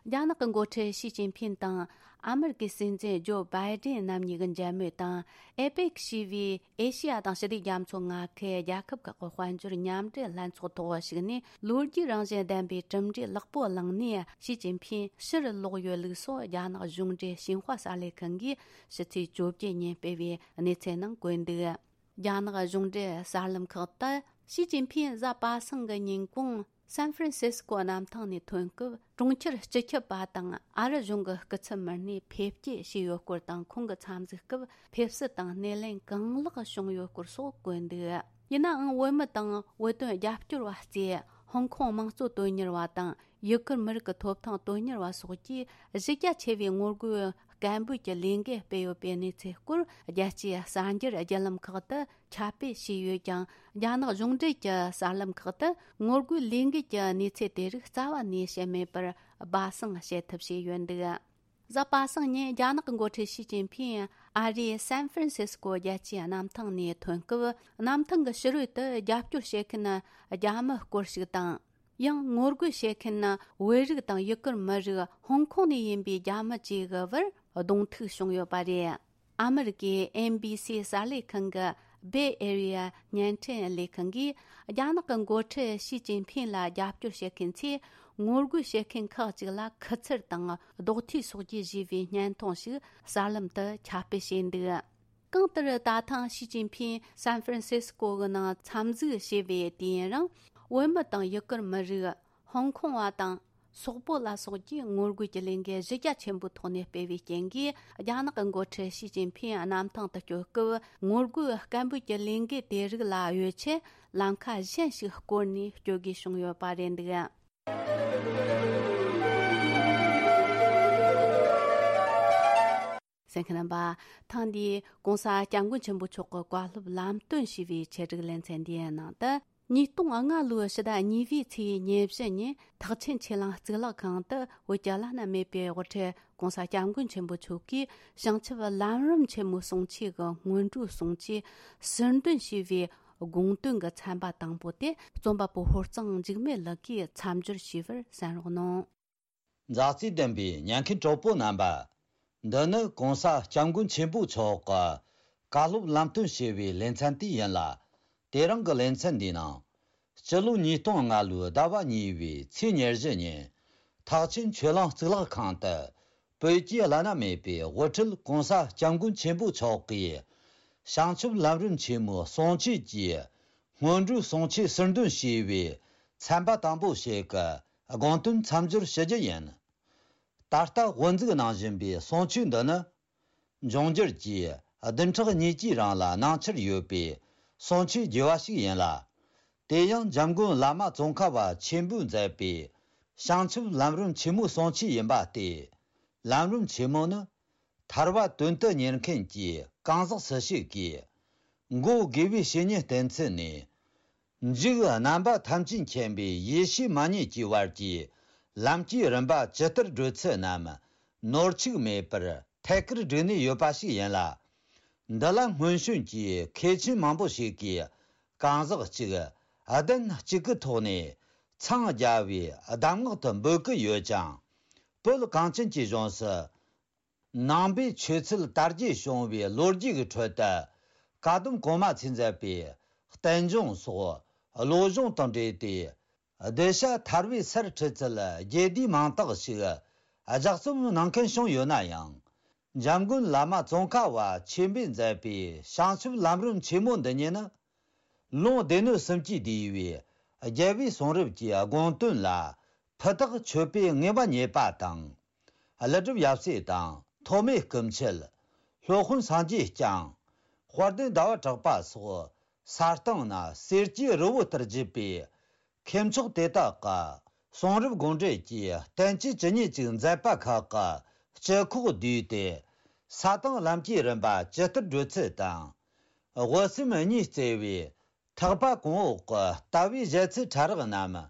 རྒྱ་ནག་གི་འགོ་ཁྲིད་ཞི་ཅིན་ཕིང་དང་ཨ་མི་རི་ཀའི་སྲིད་འཛིན་ཇོ་བྷའི་ཏན་རྣམ་གཉིས་ཀྱི་མཇལ་མོལ་དང་། ཨེ་པེག་ཞེས་པའི་ཨེ་ཤེ་ཡ་དང་ཞི་བདེ་རྒྱ་མཚོ་མངའ་ཁུལ་རྒྱལ་ཁབ་ཁག་གི་དཔལ་འབྱོར་མཉམ་འབྲེལ་ལྷན་ཚོགས་ཐོག་ཞུགས་ནས། ལོ་རྒྱུས་རང་བཞིན་ལྡན་པའི་གྲུབ་འབྲས་ལེགས་པོ་བླངས་ནས་ཞི་ཅིན་ཕིང་ཕྱིར་ལོག་ཡོད་ལུགས་སོགས་རྒྱ་ནག་གཞུང་འབྲེལ་ཞིན་ཧྭ་གསར་ལས་ཁང་གིས་ཕྱི་ཚེས་བཅོ་བརྒྱད་ཉིན་སྤེལ་བའི་གནས་ཚུལ་ནང་བཀོད་འདུག། རྒྱ་ནག་གཞུང་འབྲེལ་གསར་ལམ་ཁག་ཏུ་ཞི་ཅིན་ཕིང་གཟའ་པ་སངས་ཀྱི་ཉིན་གུང་སན་ཧྥ་རན་སིས་ཀོ་གནམ་ཐང་ནས་ཐོན་སྐབས། གྲོང་ཁྱེར་སྤྱི་ཁྱབ་པ་དང་ཨ་རི་གཞུང་གི་སྐུ་ཚབ་མི་སྣས་ཕེབས་སྐྱེལ་བྱས་ཡོད་སྐོར་དང་། ཁོང་གི་འཚམས་གཟིགས་སྐབས་ཕེབས་བསུ་དང་སྣེ་ལེན་གང་ལེགས་བྱུང་ཡོད་སྐོར་སོགས་བཀོད་འདུག། ཡིན་ནའང་། བོད་མི་དང་བོད་དོན་རྒྱབ་སྐྱོར་བ་གཙོས་ཧོང་ཀོང་དམངས་གཙོ་དོན་གཉེར་བ་དང་། ཡུ་གུར་མི་རིགས་ཀྱི་ཐོབ་ཐང་དོན་གཉེར་བ་སོགས་ཀྱིས་གཞི་རྒྱ་ཆེ་བའི་ངོ་རྒོལ་སྐད་འབོད་ཀྱི་ལས་འགུལ་སྤེལ་ཡོད་པའི་གནས་ཚུལ་སྐོར། རྒྱལ་སྤྱིའི་གསར་འགྱུར་བརྒྱུད་ལམ་ཁག་ཏུ་ཁྱབ་སྤེལ་བྱས་ཡོད་ཀྱང་། རྒྱ་ནག་གཞུང་འབྲེལ་གྱི་གསར་ལམ་ཁག་ཏུ་ངོ་རྒོལ་ལས་འགུལ་གྱི་གནས་ཚུལ་དེ་རིགས་རྩ་བ་ནས་བཤད་མེད་པར་སྦ་གསང་བྱེད་ཐབས་བྱས་ཡོད་འདུག། གཟའ་པ་སངས་ཉིན་རྒྱ་ནག་གི་འགོ་ཁྲིད་ཞི་ཅིན་ཕིང་ཨ་རིའི་སན་ཧྥ་རན་སིས་ཀོ་རྒྱལ་སྤྱིའི་གནམ་ཐང་ནས་ཐོན་སྐབས། གནམ་ཐང་གི་ཕྱི་རོལ་དུ་རྒྱབ་སྐྱོར་བྱེད་མཁན་རྒྱ་མི་སྐོར་ཞིག་དང་། ཡང་ངོ་རྒོལ་བྱེད་མཁན་བོད་རིགས་དང་ཡུ་གུར་མི་རིགས་ཧོང་ཀོང་ནས་ཡིན་པའི་རྒྱ་མི་བཅས་ཀྱི་བར་གདོང་ཐུག་བྱུང་ཡོད་པ་རེད། ཨ་མི་རི་ཀའི་ཨེན་བི་སི་གསར་ལས་ཁང་གི་Bay Area་བརྙན་འཕྲིན་ལས་ཁང་གིས། རྒྱ་ནག་གི་འགོ་ཁྲིད་ཞི་ཅིན་ཕིང་ལ་རྒྱབ་སྐྱོར་བྱེད་མཁན་ཚོས་ངོ་རྒོལ་བྱེད་མཁན་ཁག་ཅིག་ལ་ཁུ་ཚུར་དང་རྡོག་ཐིག་སོགས་ཀྱིས་གཞུས་པའི་བརྙན་ཐུང་ཞིག་གསར་ལམ་དུ་ཁྱབ་སྤེལ་བྱས་འདུག། གང་ལྟར། ད་ཐེངས་ཞི་ཅིན་ཕིང་སན་ཧྥ་རན་སིས་ཀོ་གི་ནང་འཚམས་གཟིགས་བྱས་པའི་དུས་ཡུན་རིང་། བོད་མི་དང་ཡུ་གུར་མི་རིགས། ཧོང་ཀོང་བ་དང་། སོག་པོ་ལ་སོགས་ཀྱིས་ངོ་རྒོལ་གྱི་ལས་འགུལ་གཞི་རྒྱ་ཆེན་པོའི་ཐོག་ནས་སྤེལ་བའི་རྐྱེན་གྱིས། རྒྱ་ནག་གི་འགོ་ཁྲིད་ཞི་ཅིན་ཕིང་གནམ་ཐང་དུ་བསྐྱོད་སྐབས། ངོ་རྒོལ་སྐད་འབོད་ཀྱི་ལས་འགུལ་དེ་རིགས་ལ་གཡོལ་ཆེད། ལམ་ཁ་གཞན་ཞིག་བསྐོར་ནས་བསྐྱོད་དགོས་བྱུང་ཡོད་པ་རེད་འདུག། གསན་མཁན་རྣམ་པ། ཐེངས་འདིའི་༧གོང་ས་༧སྐྱབས་མགོན་ཆེན་པོ་མཆོག་གི་བཀའ་སློབ་ལམ་སྟོན་ཞུས་པའི་ཆེད་སྒྲིག་ལེ་ཚན་འདིའི་ནང་དུ། ཉིས་སྟོང་ལྔ་ལོའི་ཕྱི་ཟླ་གཉིས་པའི་ཚེས་ཉེར་བཞི་ཉིན་ཐེག་ཆེན་ཆོས་གླིང་གཙུག་ལག་ཁང་དུ། བོད་ཀྱི་བླ་ན་མེད་པའི་དབུ་ཁྲིད་༧གོང་ས་༧སྐྱབས་མགོན་ཆེན་པོ་མཆོག་གིས། བྱང་ཆུབ་ལམ་རིམ་ཆེན་མོའི་གསུང་ཆོས་ཀྱི་སྔོན་འགྲོའི་གསུང་ཆོས་ཟུར་འདོན་ཞུས་པའི་དགོངས་དོན་གྱི་ཚན་པ་དང་པོ་དེ། རྩོམ་པ་པོ་ཧོར་གཙང་འཇིགས་མེད་ལགས་ཀྱིས་མཚམས་སྦྱོར་ཞུས་པར་གསན་རོགས་གནང་། མཛའ་བརྩེ་ལྡན་པའི་ཉན་མཁན་གྲོགས་པོ་རྣམ་པ། འདི་ནི་༧གོང་ས་༧སྐྱབས་མགོན་ཆེན་པོ་མཆོག་གི་བཀའ་སློབ་ལམ་སྟོན་ཞུ་བའི་ལེ་ཚན་དེ་ཡིན་ལ། དེ་རིང་གི་ལེ་ཚན་འདིའི་ནང་། སྤྱི་ལོ་ཉིས་སྟོང་ལྔ་ལོའི་ཟླ་བ་གཉིས་པའི་ཚེས་ཉེར་བཞི་ཉིན། ཐེག་ཆེན་ཆོས་གླིང་གཙུག་ལག་ཁང་དུ། བོད་ཀྱི་བླ་ན་མེད་པའི་དབུ་ཁྲིད་༧གོང་ས་༧སྐྱབས་མགོན་ཆེན་པོ་མཆོག་གིས། བྱང་ཆུབ་ལམ་རིམ་ཆེན་མོའི་གསུང་ཆོས་ཀྱི་སྔོན་འགྲོའི་གསུང་ཆོས་ཟུར་འདོན་ཞུས་པའི་ཚན་པ་དང་པོ་ཞིག་གི་དགོངས་དོན་མཚམས་སྦྱོར་ཞུ་རྒྱུ་ཡིན། ད་ལྟ་དབུ་འཛུགས་གནང་བཞིན་པའི་གསུང་ཆོས་འདི་ནི། འབྱུང་འགྱུར་གྱི་བདུན་ཕྲག་གཉིས་ཀྱི་རིང་ལ་གནང་འཆར་ཡོད་པའི་གསུང་ཆོས་རྒྱས་པ་ཞིག་ཡིན་ལ། དེ་ཡང་འཇམ་མགོན་བླ་མ་ཙོང་ཁ་པ་ཆེན་པོས་མཛད་པའི་བྱང་ཆུབ་ལམ་རིམ་ཆེན་མོའི་གསུང་ཆོས་ཡིན་པ་སྟེ། ལམ་རིམ་ཆེན་མོ་ནི། ཐར་པ་དོན་དུ་གཉེར་མཁན་གྱི་གང་ཟག་སུ་ཞིག་གིས། འགོད་དགོས་པའི་བཤེས་གཉེན་བསྟེན་ཚུལ་ནས། འཇུག་རྣམ་པ་ཐམས་ཅད་མཁྱེན་པའི་ཡེ་ཤེས་མ་རྙེད་ཀྱི་བར་གྱི་ལམ་གྱི་རིམ་པ་ཇི་ལྟར་བགྲོད་ཚུལ་རྣམས་ནོར་འཆུག་མེད་པར་ཐད་ཀར་བསྒྲིགས་ནས་ཡོད་པ་ཞིག་ཡིན་ལ། འདི་ལ་སྔོན་བྱོན་གྱི་མཁས་ཆེན་མང་པོ་ཞིག་གིས་གང་ཟག་གཅིག་གདན་གཅིག་གི་ཐོག་ནས་འཚང་རྒྱ་བའི་གདམས་ངག་ཏུ་འབོད་ཀྱི་ཡོད་ཀྱང་། བོད་གངས་ཅན་གྱི་ལྗོངས་སུ། ནང་པའི་ཆོས་ཚུལ་དར་རྒྱས་བྱུང་བའི་ལོ་རྒྱུས་ཀྱི་ཁྲོད་དུ། བཀའ་གདམས་གོང་མ་ཚོས་མཛད་པའི་བསྟན་འབྱུང་སོགས་བློ་སྦྱོང་དང་འབྲེལ་ཏེ། གདུལ་བྱ་ཐར་པའི་སར་ཁྲིད་ཚུལ་རྒྱས་བསྡུས་མང་དག་ཞིག་ལྗགས་རྩོམ་གནང་མཁན་བྱུང་ཡོད་ན་ཡང་། འཇམ་མགོན་བླ་མ་ཙོང་ཁ་པ་ཆེན་པོས་མཛད་པའི་བྱང་ཆུབ་ལམ་རིམ་ཆེན་མོ་འདི་ཉིད་ནི། ལུང་སྡེ་སྣོད་གསུམ་གྱིས་བསྡུས་པའི་རྒྱལ་བའི་གསུང་རབ་ཀྱི་དགོངས་དོན་ལ་ཕུ་ཐག་ཆོད་པའི་ངེས་པ་རྙེད་པ་དང་། ཀླུ་སྒྲུབ་ཡབ་སྲས་དང་ཐོགས་མེད་སྐུ་མཆེད། སློབ་དཔོན་སངས་རྒྱས་བསྐྱངས། དཔལ་ལྡན་ཟླ་བ་གྲགས་པ་སོགས་ས་སྟེང་ན་གསེར་གྱི་རི་བོ་ལྟར་བརྗིད་པའི་མཁས་མཆོག་དེ་དག་གི་གསུང་རབ་དགོངས་འགྲེལ་གྱི་བསྟན་བཅོས་ཇི་སྙེད་ཅིག་མཛད་པ་ཁག་གི་སྤྱི་ཁོག་བསྡུས་ཏེ། ས་དང་ལམ་གྱི་རིམ་པ་ཇི་ལྟར་བགྲོད་ཚུལ་དང་། དབུ་སེམས་གཉིས་བརྩེ་བའི་ཐེག་པ་གོང་འོག་གི་ལྟ་བའི་བཞེད་ཚུལ་ཕྲ་རགས་རྣམས་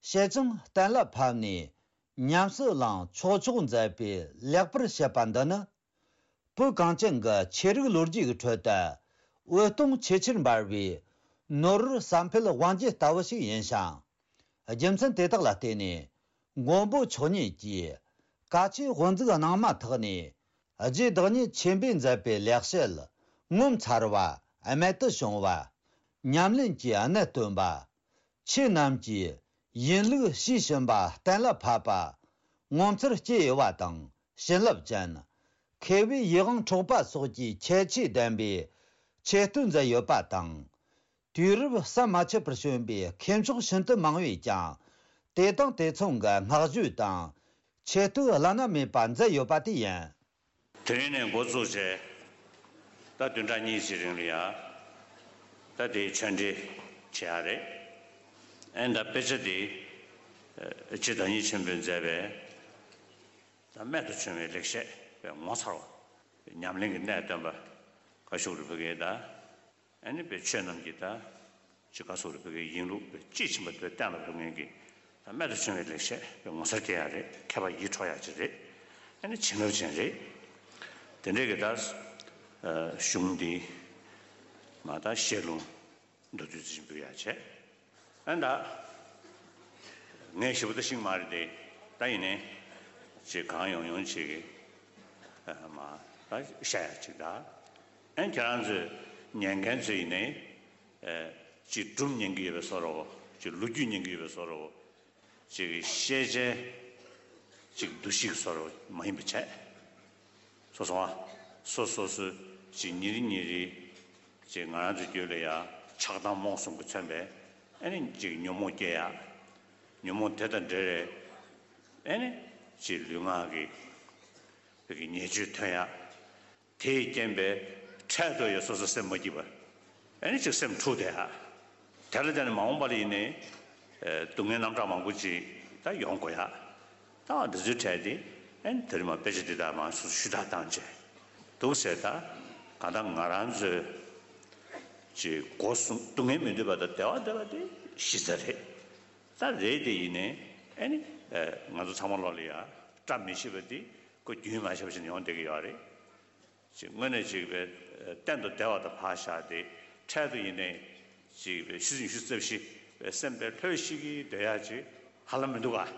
ཞལ་བྱང་གཏན་ལ་ཕབ་ནས་ཉམས་སུ་བླང་ཆོག་ཆོག་མཛད་པའི་ལེགས་པར་བཤད་པ་འདི་ནི། བོད་གངས་ཅན་གྱི་ཆོས་རིག་ལོ་རྒྱུས་ཀྱི་ཁྲོད་དུ་འོད་སྟོང་ཆེས་ཆེར་འབར་བའི་ནོར་བུར་བསམ་འཕེལ་དབང་རྒྱལ་ལྟ་བུ་ཞིག་ཡིན་ཞིང་། རྒྱུ་མཚན་དེ་དག་ལ་བརྟེན་ནས་མགོན་པོ་མཆོག་ཉིད་ཀྱིས་བཀའ་ཆོས་དབུ་འཛུགས་གནང་མ་ཐག་ནས་རྗེ་བདག་ཉིད་ཆེན་པོས་མཛད་པའི་ལེགས་བཤད་ངོ་མཚར་བ་རྨད་དུ་བྱུང་བ། ཉམས་ལེན་གྱི་གནད་སྟོན་པ། ཆོས་རྣམས་ཀྱི་ཡིན་ལུགས་ཤེས་བཞིན་པ་གཏན་ལ་ཕབ་པ། ངོ་མཚར་སྐྱེ་དབྱེ་བ་དང་བྱིན་རླབས་ཅན། མཁས་པའི་ཡིད་དབང་འཕྲོག་པ་སོགས་ཀྱི་ཁྱད་ཆོས་ལྡན་པའི་ཆེ་བསྟོད་མཛད་ཡོད་པ་དང་། དུས་རབས་ཟམ་མ་ཆད་པར་བྱོན་པའི་མཁས་མཆོག་ཤིན་ཏུ་མང་བས་ཀྱང་། དེ་དང་དེ་མཚུངས་ཀྱི་བསྔགས་བརྗོད་དང་ཆེ་བསྟོད་བླ་ན་མེད་པ་མཛད་ཡོད་པ་དེ་ཡིན། དེ་རིང་ནས་འགོ་བཙུགས་བྱས། ད་བདུན་ཕྲག་གཉིས་ཀྱི་རིང་ལ་ཡ། ད་དེའི་ཆོས་འབྲེལ་བྱེད་ཡ་རེད། ཨེ་ད་དཔེ་ཆ་དེ། ཨེ་རྗེ་བདག་ཉིད་ཆེན་པོས་མཛད་པའི། ད་རྨད་དུ་བྱུང་བའི་ལེགས་བཤད་པའི་ངོ་མཚར་བ། ཉམས་ལེན་གྱི་གནད་སྟོན་པ། བཀའ་བཞུགས་རིན་པོ་ཆེ་དང་། ཨ་ནི་པའི་ཆོས་རྣམས་ཀྱི་ད། ཅི་བཀའ་ཟུར་བོད་ཀྱི་ཡིན་ལུགས་པའི་དཔྱིས་ཕྱིན་པ་དེ་གཏན་ལ་ཕབ་མཁན་གྱི་ད་རྨད་དུ་བྱུང་བའི་ལེགས་བཤད་པའི་ངོ་མཚར་སྐྱེ་ཡ་རེད། མཁས་པ་ཡིད་འཕྲོག་ཡ་ཅིག་རེད། ཨ་ནི་བྱིན་རླབས་ཅན་རེད། དེ་འདྲའི་གི་ད་གཞུང་འདི་མ་ད་བཤད་ལུང་མདོར་བསྡུས་ཅིག་འབུལ་ཡ་བྱས། ཨ་ནི་ད་ངས་ཞེ་པོ་ད་ཤེས་ཀྱི་མ་རེད་དེ། ད་ཡིན་ནའི་ཅིག་གང་ཡོང་ཡོང་ཅིག་གི་མ་ད་བཤད་ཡ་ཅིག་ད། ཨ་ནི་ཁྱེད་རང་ཚོས་ཉན་མཁན་ཚོས་ཡིན་ནའི་ཅིག་སྒྲུང་ཉན་གྱི་ཡོད་པའི་བཟོ་འདྲ་བོ། ཅིག་ལོ་རྒྱུས་ཉན་གྱི་ཡོད་པའི་བཟོ་འདྲ་བོ། ཅིག་ཤེས་བྱའི་ཅིག་འདུ་ཤེས་བཟོ་འདྲ་བོ་མ་ཡིན་པ་བྱས། སོ་སོ་བ། སོ་སོ་སོའི་ཅིག་ཉིན་རེ་ཉིན་རེ་ཅིག་ང་རང་ཚོའི་རྒྱུད་ལ་ཡ་ཆགས་སྡང་རྨོངས་གསུམ་གྱིས་མཚོན་པའི་ཨ་ནི་ཅིག་ཉོན་མོངས་སྐྱེ་ཡ། ཉོན་མོངས་དེ་དང་འབྲེལ་བའི་ཨ་ནི་ཅིག་ལུས་ངག་གི་བོད་ཀྱི་ཉེས་སྤྱོད་ཐོན་ཡ། དེས་རྐྱེན་པས་འཕྲལ་དུ་ཡང་སོ་སོ་སེམས་མ་སྐྱིད་པ། ཨ་ནི་ཅིག་སེམས་འཁྲུགས་བསྡད་ཡ། དེ་ལ་བརྟེན་ནས་མ་འོངས་པ་ལ་ཡིན་ནའི་ཨེ་སྡུག་བསྔལ་རྣམ་གྲངས་མང་པོ་ཅིག་ད་ཡོང་དགོས་ཡ། ད་འདི་ཚོའི་གྲས་དེ་ཨ་ནི་ད་རེས་མ་དཔེ་ཆ་འདི་དག་མང་སོ་སོ་ཞུ་དག་བཏང་བྱས་འདུག་ཟེར། ད་གང་ལྟར་ང་རང་ཚོའི་ཅིག་སྒོ་གསུམ་སྡུག་བསྔལ་མི་འདོད་པ་དང་བདེ་བ་འདོད་པ་དེ་གཞི་རྩ་རེད། ད་རེད་དེ་ཡིན་ནའི་ཨ་ནི་ཨེ་ང་ཚོ་ཚང་མ་ལོག་ལ་ཡ་བཀྲ་མི་ཤིས་པ་དེ་ཁོ་རྒྱུན་མ་ཆད་པ་ཞིག་ཡོང་བསྡད་ཀྱི་ཡོད་རེད། ཅིག་དངོས་གནས་ཅིག་པའི་གཏན་དུ་བདེ་བ་དང་བག་ཆགས་ཏེ་འཕྲལ་དུ་ཡིན་ནའི་ཅིག་པའི་ཤི་ཟིན་ཤི་རྩབ་ཤི་པའི་སེམས་པའི་ལྷོད་ཤིག་གིས་སྡོད་ཡ་ཅིག་ཧ་ལམ་མི་འདུག་ག།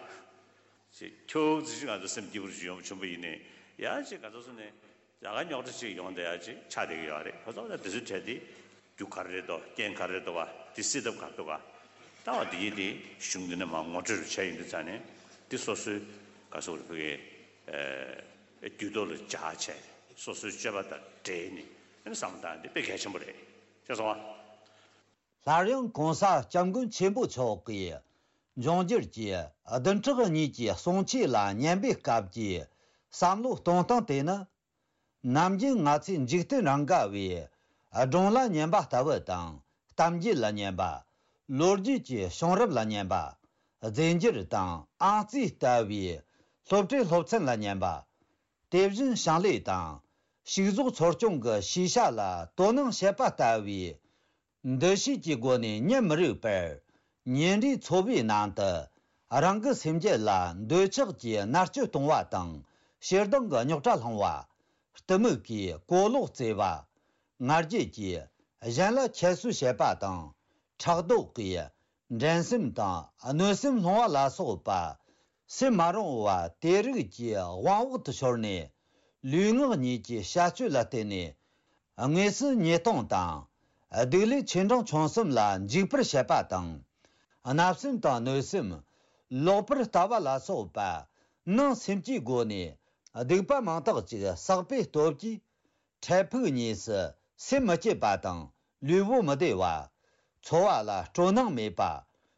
ཅིག་ཁྱོད་ཅིག་ང་ཚོ་སེམས་སྐྱིད་པོ་ཅིག་ཡོང་བྱུང་པ་ཡིན་ནའི་ཡ་ཅིག་ག་ཚོད་སོང་ནས་ཡ་ག་རྙོག་དྲ་ཅིག་ཡོང་བསྡད་ཡ་ཅིག་ཆགས་བསྡད་ཀྱི་ཡོད་རེད། ཁོ་ཚོ་ད་དེ་ཚོའི་གྲས་དེ་རྒྱུ་ག་རེ་རེད་དོ། རྐྱེན་ག་རེ་རེད་དོ་བ། དེ་སེལ་ཐབས་ག་རེ་འདུག་ག། ད་བ་དེ་ཡིན་དེ་གཞུང་འདི་ནས་མར་ངོ་སྤྲོད་རུ་བྱས་ཡིན་དུས་ཙང་ནས་འདི་སོ་སོའི་ག་སོ་རུ་ཕུ་གའི་རྒྱུད་ཐོག་ལ་འཇགས་བྱས་སོ་སོའི་སྤྱོད་པ་དང་འབྲེལ་ནས་ཨ་ནི་བསམ་བློ་བཏང་འདི་དཔེ་གལ་ཆེན་པོ་རེད། ཤེས་སོང་ཨ། སླར་ཡང་གོང་ས་སྐྱབས་མགོན་ཆེན་པོ་མཆོག་གིས་འབྱུང་འགྱུར་གྱི་བདུན་ཕྲག་གཉིས་ཀྱི་གསུང་ཆོས་ལ་ཉན་པའི་སྐབས་ཀྱི་བསམ་བློ་གཏོང་སྟངས་དེ་ནི། ནམ་རྒྱུན་ང་ཚོས་འཇིག་རྟེན་རང་ག་བའི་སྒྲུང་ལ་ཉན་པ་ལྟ་བུ་དང་། གཏམ་རྒྱུད་ལ་ཉན་པ། ལོ་རྒྱུས་ཀྱི་བྱུང་རབས་ལ་ཉན་པ། རྫས་འགྱུར་དང་ཨང་རྩིས་ལྟ་བུའི་སློབ་གྲྭའི་སློབ་ཚན་ལ་ཉན་པ། དེ་བཞིན་ཞིང་ལས་དང་། ཕྱུགས་ཟོག་འཚོ་སྐྱོང་གི་ཤེས་བྱ་ལ་དོ་སྣང་བྱེད་པ་ལྟ་བུའི་འདུ་ཤེས་ཀྱི་སྒོ་ནས་ཉིན་མི་རིག་པར་ཉིན་རེའི་འཚོ་བའི་ནང་དུ་རང་གི་སེམས་རྒྱུད་ལ་འདོད་ཆགས་ཀྱི་མནར་གཅོད་གཏོང་བ་དང་། ཞེ་སྡང་གི་རྙོག་དྲ་སློང་བ། གཏི་མུག་གིས་གོ་ལོག་བཙལ་བ། ང་རྒྱལ་གྱིས་གཞན་ལ་ཁྱད་གསོད་བྱེད་པ་དང་། ཕྲག་དོག་གིས་འགྲན་སེམས་དང་གནོད་སེམས་སློང་བ་ལ་སོགས་པ། སེམས་མ་རུང་བ་དེ་རིགས་ཀྱི་དབང་འོག་ཏུ་ཤོར་ནས། ལུས་ངག་གཉིས་ཀྱི་བྱ་སྤྱོད་ལ་བརྟེན་ནས། དངོས་སུ་ཉེས་ལྟུང་དང་། སྡིག་ལས་ཆེ་འབྲིང་ཆུང་གསུམ་ལ་འཇུག་པར་བྱེད་པ་དང་། བརྣབ་སེམས་དང་གནོད་སེམས། ལོག་པར་ལྟ་བ་ལ་སོགས་པ། ནང་སེམས་ཀྱི་སྒོ་ནས་སྡིག་པ་མང་དག་ཅིག་བསགས་པའི་སྟོབས་ཀྱིས། འཕྲལ་ཕུགས་གཉིས་སུ་སེམས་མི་སྐྱིད་པ་དང་ལུས་པོ་མི་བདེ་བ། འཚོ་བ་ལ་སྤྲོ་སྣང་མེད་པ།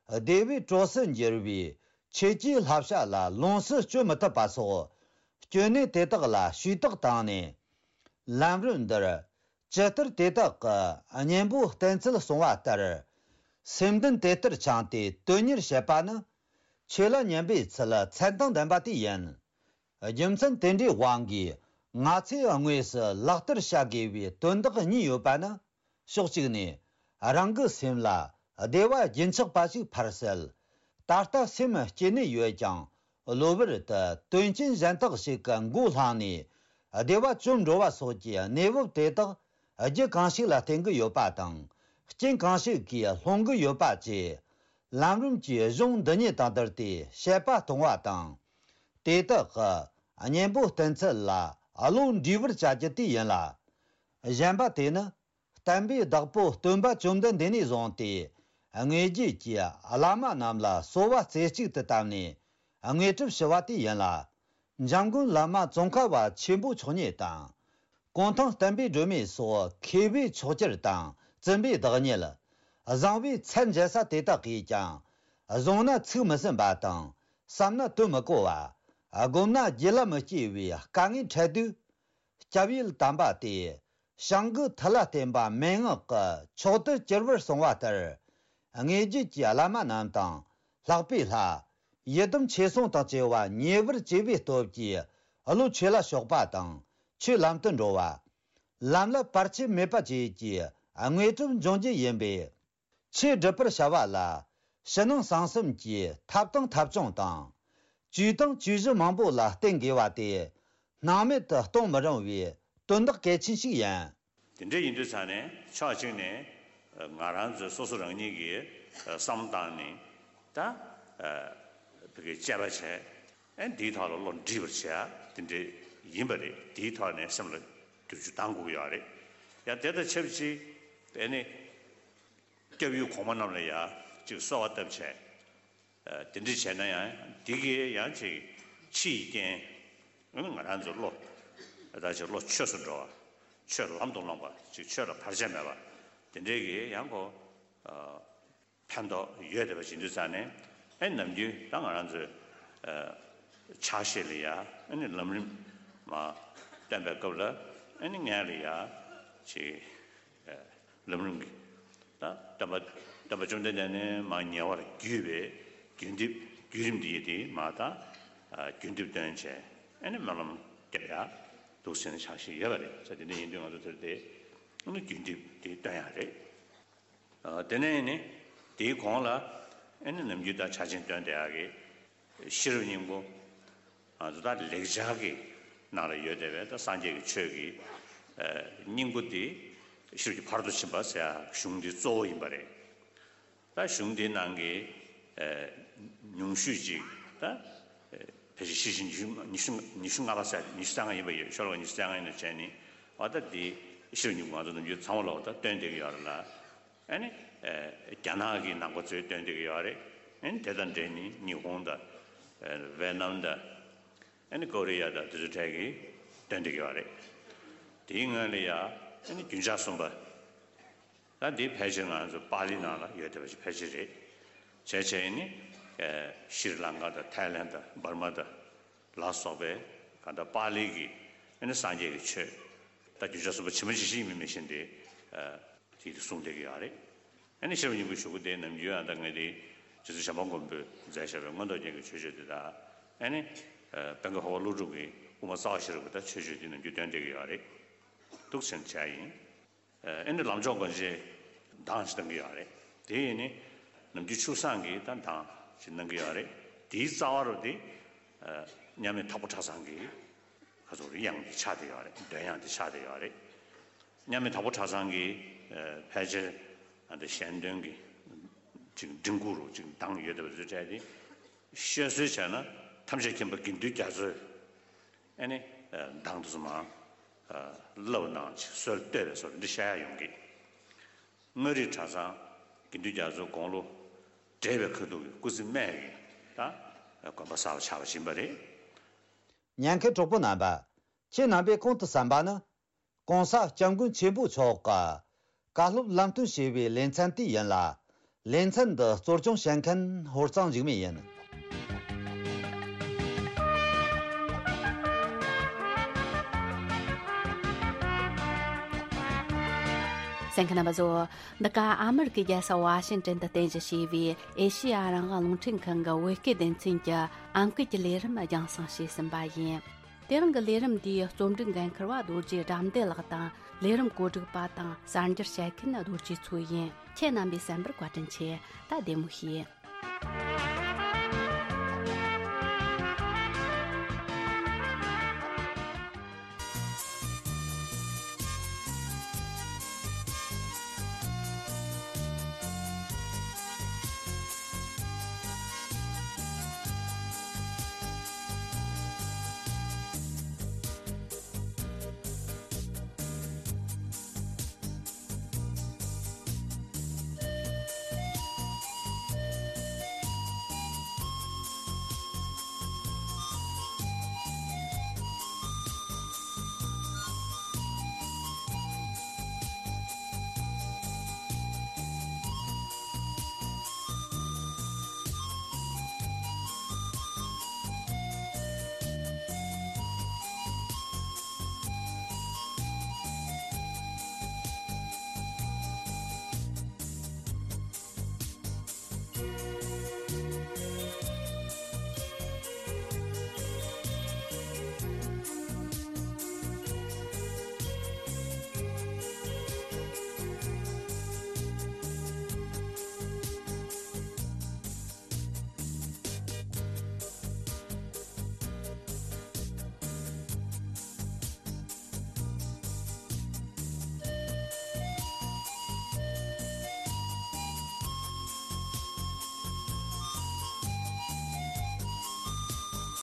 བདེ་བའི་གྲོགས་སུ་འགྱུར་བའི་ཆོས་ཀྱི་བསླབ་བྱ་ལ་ལོངས་སུ་སྤྱོད་མི་ཐུབ་པ་སོགས་སྐྱོན་གནས་དེ་དག་ལ་ཞུས་དག་བཏང་ནས། ལམ་རིམ་འདིར་ཇི་ལྟར་དེ་དག་གི་གཉེན་པོ་བསྟེན་ཚུལ་གསུངས་པ་ལྟར། སེམས་གཏིང་དེ་ལྟར་བཅངས་ཏེ་དོན་གཉེར་བྱེད་པ་ནི་ཆོས་ལ་ཉན་པའི་ཚུལ་མཚན་དང་ལྡན་པ་དེ་ཡིན། རྒྱུ་མཚན་དེ་འདྲའི་དབང་གིས་ང་ཚོས་དངོས་སུ་ལག་བསྟར་བྱ་དགོས་པའི་དོན་དག་གཉིས་ཡོད་པ་ནི། ཕྱོགས་གཅིག་ནས་རང་གི་སེམས་ལ་བདེ་བ་རྒྱུན་ཆགས་པ་ཞིག་ཕར་བསལ། ད་ལྟ་སེམས་སྐྱིད་གནས་ཡོད་ཀྱང་གློ་བུར་དུ་དོན་རྐྱེན་གཞན་དག་ཞིག་གི་མགོ་བསླངས་ནས་བདེ་བ་བཅོམ་འགྲོ་བ་སོགས་ཀྱི་གནས་བབ་དེ་དག་རྒྱུ་གང་ཞིག་ལ་བརྟེན་གྱི་ཡོད་པ་དང་རྐྱེན་གང་ཞིག་གིས་སློང་གི་ཡོད་པ་བཅས། ལམ་རིམ་གྱི་གཞུང་འདི་ཉིད་དང་བསྡུར་ཏེ་དཔྱད་པ་གཏོང་བ་དང་། དེ་དག་གི་གཉེན་པོ་བསྟེན་ཚུལ་ལ་བློ་འདྲིས་པར་བྱ་རྒྱུ་དེ་ཡིན་ལ། གཞན་པ་དེ་ནི་བསྟན་པའི་བདག་པོ་སྟོན་པ་བཅོམ་ལྡན་འདས་ནས་བཟུང་སྟེ། དངོས་རྒྱུད་ཀྱི་བླ་མ་རྣམས་ལ་གསོལ་བ་རྩེ་གཅིག་ཏུ་བཏབ་ནས་དངོས་གྲུབ་ཞུ་བ་དེ་ཡིན་ལ། འཇམ་མགོན་བླ་མ་ཙོང་ཁ་པ་ཆེན་པོ་མཆོག་ཉིད་དང་། གུང་ཐང་བསྟན་པའི་སྒྲོན་མེ་སོགས་མཁས་པའི་མཆོག་གྱུར་དང་བཙུན་པའི་བདག་ཉིད། བཟང་པོའི་ཚད་འཇལ་ས་དེ་དག་གིས་ཀྱང་། བཟུང་ན་ཚིག་མི་ཟིན་པ་དང་། བསམ་ན་དོན་མི་གོ་བ། བསྒོམ་ན་རྒྱུད་ལ་མི་སྐྱེ་བའི་དཀའ་ངལ་འཕྲད་དུས། སྐྱབས་ཡུལ་དམ་པ་སྟེ། བྱང་གི་མཐུ་ལ་བརྟེན་པ་མན་ངག་གི་མཆོག་ཏུ་གྱུར་པར་གསུངས་པ་ལྟར། དངོས་རྒྱུད་ཀྱི་བླ་མ་རྣམས་དང་ལྷག་པའི་ལྷ། ཡི་དམ་ཆོས་སྲུང་དང་བཅས་པ་མཉེས་པར་བྱས་པའི་སྟོབས་ཀྱིས་བློ་ཆོས་ལ་ཕྱོགས་པ་དང་ཆོས་ལམ་དུ་འགྲོ་བ། ལམ་ལ་བར་ཆད་མེད་པ་བཅས་ཀྱི་དངོས་གྲུབ་འབྱུང་རྒྱུ་ཡིན་པས། ཆོས་སྒྲུབ་པར་བྱ་བ་ལ་ཕྱི་ནང་གསང་གསུམ་གྱི་ཐབས་དང་ཐབས་བྱུང་དང་། བཅོས་དང་བཅོས་གཞི་མང་པོ་ལ་བརྟེན་དགོས་པ་སྟེ། སྣང་མེད་དུ་གཏོང་མི་རུང་བའི་དོན་དག་གལ་ཆེན་ཞིག་ཡིན། དེ་འདྲ་ཡིན་དུས་ཙང་ནས་ཕྱོགས་གཅིག་ནས་ང་རང་ཚོས་སོ་སོ་རང་ཉིད་ཀྱིས་བསམ་བློ་བཏང་ནས་ད་བོད་སྐད་དཔྱད་པ་བྱས། ཨེ་འདིའི་ཐོག་ལ་བློ་འདྲིས་པར་བྱས་དེ་འདྲ་ཡིན་པ་རེད། དེའི་ཐོག་ནས་སེམས་ལ་བསྒྱུར་བཅོས་གཏང་དགོས་ཀྱི་ཡོད་རེད། ཡང་དེ་དང་ཆབས་ཅིག་ཨེ་ནི་སྐྱབས་ཡུལ་གོང་མ་རྣམས་ལ་ཡང་ཅིག་གསོལ་བ་བཏབ་བྱས། ཨ་དེ་འདྲ་བྱས་ན་ཡང་འདི་གིས་ཡང་ཅིག་ཕྱི་ཡི་རྐྱེན། ཨ་ནི་ང་རང་ཚོ་བློ་ད་ཅིག་བློ་ཆོས་སུ་འགྲོ་བ། ཆོས་ལམ་དུ་སློང་བ་ཅིག་ཆོས་ལ་བར་ཆད་མེད་པ་དེ་འདྲའི་གི་ཡང་ཁོ་ཨ་ཕན་ཐོགས་ཡོད་བསྡད་པ་ཞིག་འདུག་ཙང་ནས། ཨ་ནི་ནམ་རྒྱུན་ད་ང་རང་ཚོའི་ཨ་ཕྱག་བཞེས་ལ་ཡ་ཨ་ནི་ལམ་རིམ་མ་སྟོན་པའི་སྐབས་ལ་ཨ་ནི་སྔོན་ལ་ཡ་ཅིག་ལམ་རིམ་གྱི་ད་སྟོན་པ་སྟོན་པ་བཅོམ་ལྡན་འདས་ནས་མར་ཉེ་བར་བརྒྱུད་པའི་བརྒྱུད་འདེབས་བརྒྱུད་རིམ་འདི་ཡི་དེ་མར་ད་བརྒྱུད་འདེབས་སྟོན་བྱས། ཨ་ནི་སྨོན་ལམ་རྒྱབ་ཡ་འདུག་ཟེར་ནས་ཕྱག་བཞེས་ཡོད་པ་རེད། ས་དེ་འདྲ་ཡིན་དུས་ང་ཚོ་དེར་དེ་ཨ་ནི་བརྒྱུད་འདེབས་དེ་སྟོན་ཡ་རེད། ཨ་དེ་ནས་ནི་དེའི་གོང་ལ་ཨ་ནི་ནམ་རྒྱུན་ད་ཕྱག་ཆེན་སྟོན་བསྡད་ཡག་གི་ཤེས་རབ་སྙིང་པོ། ང་ཚོ་ད་ལེགས་སྦྱར་གྱི་ནང་ལ་ཡོད་བསྡད་པའི་ད་སངས་རྒྱས་ཀྱི་ཆོས་ཀྱི་ཨ་སྙིང་པོ་དེ་ཤེས་རབ་ཀྱི་ཕ་རོལ་ཏུ་ཕྱིན་པ་ཟེར་ཡག་གཞུང་འདི་གཙོ་བོ་ཡིན་པ་རེད། ད་གཞུང་འདིའི་ནང་གི་ཨ་ཉུང་ཤོས་ཅིག་ད་ཨ་ཕལ་ཆེར་ཤེར་ཕྱིན་ཉི་ཤུ་ཉི་ཤུ་ཉི་ཤུ་ལྔ་པ་ཟེར་ཉི་ཤུ་རྩ་ལྔ་ཡིན་པ་ཡོད། ཤོ་ལོ་ཀ་ཉི་ཤུ་རྩ་ལྔ་ཡིན་ན་བྱས་ནི་འོ་ད་འདི་ཤེས་རབ་སྙིང་པོ་ང་ཚོ་ནམ་རྒྱུན་ཚང་མ་ལ་འོ་ད་སྟོན་བསྡད་ཀྱི་ཡོད་རེད་ལ། ཨ་ནི་ཨ་རྒྱ་ནག་གི་ནང་པ་ཚོས་སྟོན་བསྡད་ཀྱི་ཡོད་རེད། ཨ་ནི་དེ་དང་འབྲེལ་ནི་ཉི་ཧོང་དང་ཨ་ཝེ་ནམ་དང་ཨ་ནི་ཀོ་རི་ཡ་དང་དེ་ཚོ་གྲས་ཀྱིས་སྟོན་བསྡད་ཀྱི་ཡོད་རེད། དེའི་སྔོན་ལ་ཡ་ཨ་ནི་རྒྱུན་ཆགས་གསུམ་པ། ད་འདི་ཕལ་ཆེར་ང་ཚོ་པཱ་ལི་ནང་ལ་ཡོད་བསྡད་པ་ཞིག་ཕལ་ཆེར་རེད། བྱས་བྱས་ནི་ཨ་ཤྲི་ལང་ཀ་དང་ཐའི་ལན་དང་འབར་མ་དང་ལ་སོགས་པའི་གང་ལྟར་པཱ་ལི་གི་ཨ་ནི་སངས་རྒྱས་ཀྱི་ཆོས་ད་རྒྱུན་ཆགས་གསུམ་པ་ཇི་མ་ཇི་བཞིན་མིན་མི་བཞིན་ཏེ་ཨ་དེ་དེ་གསུངས་བསྡད་ཀྱི་ཡོད་རེད། ཨ་ནི་ཤེས་རབ་སྙིང་པོའི་གཞུག་གུ་དེ་ནམ་རྒྱུན་ཨ་ད་ངས་དེ་རྗེ་བཙུན་བྱམས་པ་མགོན་པོས་མཛད་བཞག་པའི་མངོན་རྟོགས་རྒྱན་གྱི་མཆོད་བརྗོད་དེ་དང་། ཨ་ནི་ཨ་དཔལ་མགོན་འཕགས་པ་ཀླུ་སྒྲུབ་ཀྱི་དབུ་མ་རྩ་བ་ཤེས་རབ་ཀྱི་ད་མཆོད་བརྗོད་དེ་ནམ་རྒྱུན་འདོན་བསྡད་ཀྱི་ཡོད་རེད། འདུག་ཟེར་བྱས་ཡིན། ཨ་ནི་ལམ་མཆོག་དགོངས་གཅིག་གདངས་ཅིག་གཏང་གི་ཡོད་རེད། དེ་ཡིན་ནི་ནམ་རྒྱུན་ཆུབ་གསང་གི་ད་གདངས་ཅིག་གནང་གི་ཡོད་རེད། དེའི་རྩ་བ་རུ་དེ་ཨ་མཉམ་མེད་དྭགས་པོ་གྲྭ་ཚང་གི་ཁ་ཚུགས་རེད། དབྱངས་དེ་ཆགས་བསྡད་ཡོད་རེད། འདོན་དབྱངས་དེ་ཆགས་བསྡད་ཡོད་རེད། མཉམ་མེད་དྭགས་པོ་གྲྭ་ཚང་གི་ཨ་ཕལ་ཆེར་ཨ་འདི་གཞན་དོན་གྱི་ཅིག་མགྲིན་ཁུག་རུ་ཅིག་གདངས་ཡོད་བསྡད་པ་ཚོའི་གྲས་དེ་བཤད་སྲོལ་བྱས་ན་ཐམས་ཅད་མཁྱེན་པ་དགེ་འདུན་རྒྱ་མཚོས། ཨ་ནི་གདངས་དུ་མ་བསླབ་གནང་ཅིག་སྲོལ་གཏོད་པའི་སོར་འདི་བཤད་ཡ་ཡོང་གི། མངའ་རིས་གྲྭ་ཚང་དགེ་འདུན་རྒྱ་མཚོའི་དགུང་ལོ་བགྲེས་པའི་ཁ་ཐུག་གི་སྐུ་ཚེ་སྨད་ཀྱི་ད་དགོན་པ་གསར་པ་ཆགས་པ་ཡིན་པ་རེད། ཉན་མཁན་གྲོགས་པོ་རྣམ་པ། ཁྱེད་རྣམ་པས་གོང་དུ་གསན་པ་ནི། ༸གོང་ས་༸སྐྱབས་མགོན་ཆེན་པོ་མཆོག་གི་བཀའ་སློབ་ལམ་སྟོན་ཞེས་པའི་ལེ་ཚན་དེ་ཡིན་ལ། ལེ་ཚན་འདི་གཙོ་སྐྱོང་བྱེད་མཁན་ཧོར་གཙང་འཇིགས་མེད་ཡིན། གསན་མཁན་རྣམ་པ་ཚོ། འདི་ག་ཨ་མི་རི་ཀའི་རྒྱལ་ས་ཝ་ཤིང་ཏན་དུ་རྟེན་གཞི་བྱས་པའི་ཨེ་ཤེ་ཡ་རང་དབང་རླུང་འཕྲིན་ཁང་གི་བོད་སྐད་སྡེ་ཚན་གྱི་ཨང་ཀི་གི་ལས་རིམ་རྒྱང་སྲིང་བྱས་ཟིན་པ་ཡིན། དེ་རིང་གི་ལས་རིམ་འདིའི་རྩོམ་སྒྲིག་འགན་འཁུར་བ་རྡོ་རྗེ་དགྲ་འདུལ་ལགས་དང་། ལས་རིམ་གོ་སྒྲིག་པ་དང་གསར་འགྱུར་བཤད་མཁན་རྡོ་རྗེ་མཚོ་ཡིན། ཁྱེད་རྣམ་པས་གསན་པར་བཀའ་དྲིན་ཆེ། ད་བདེ་མོ་བྱོས།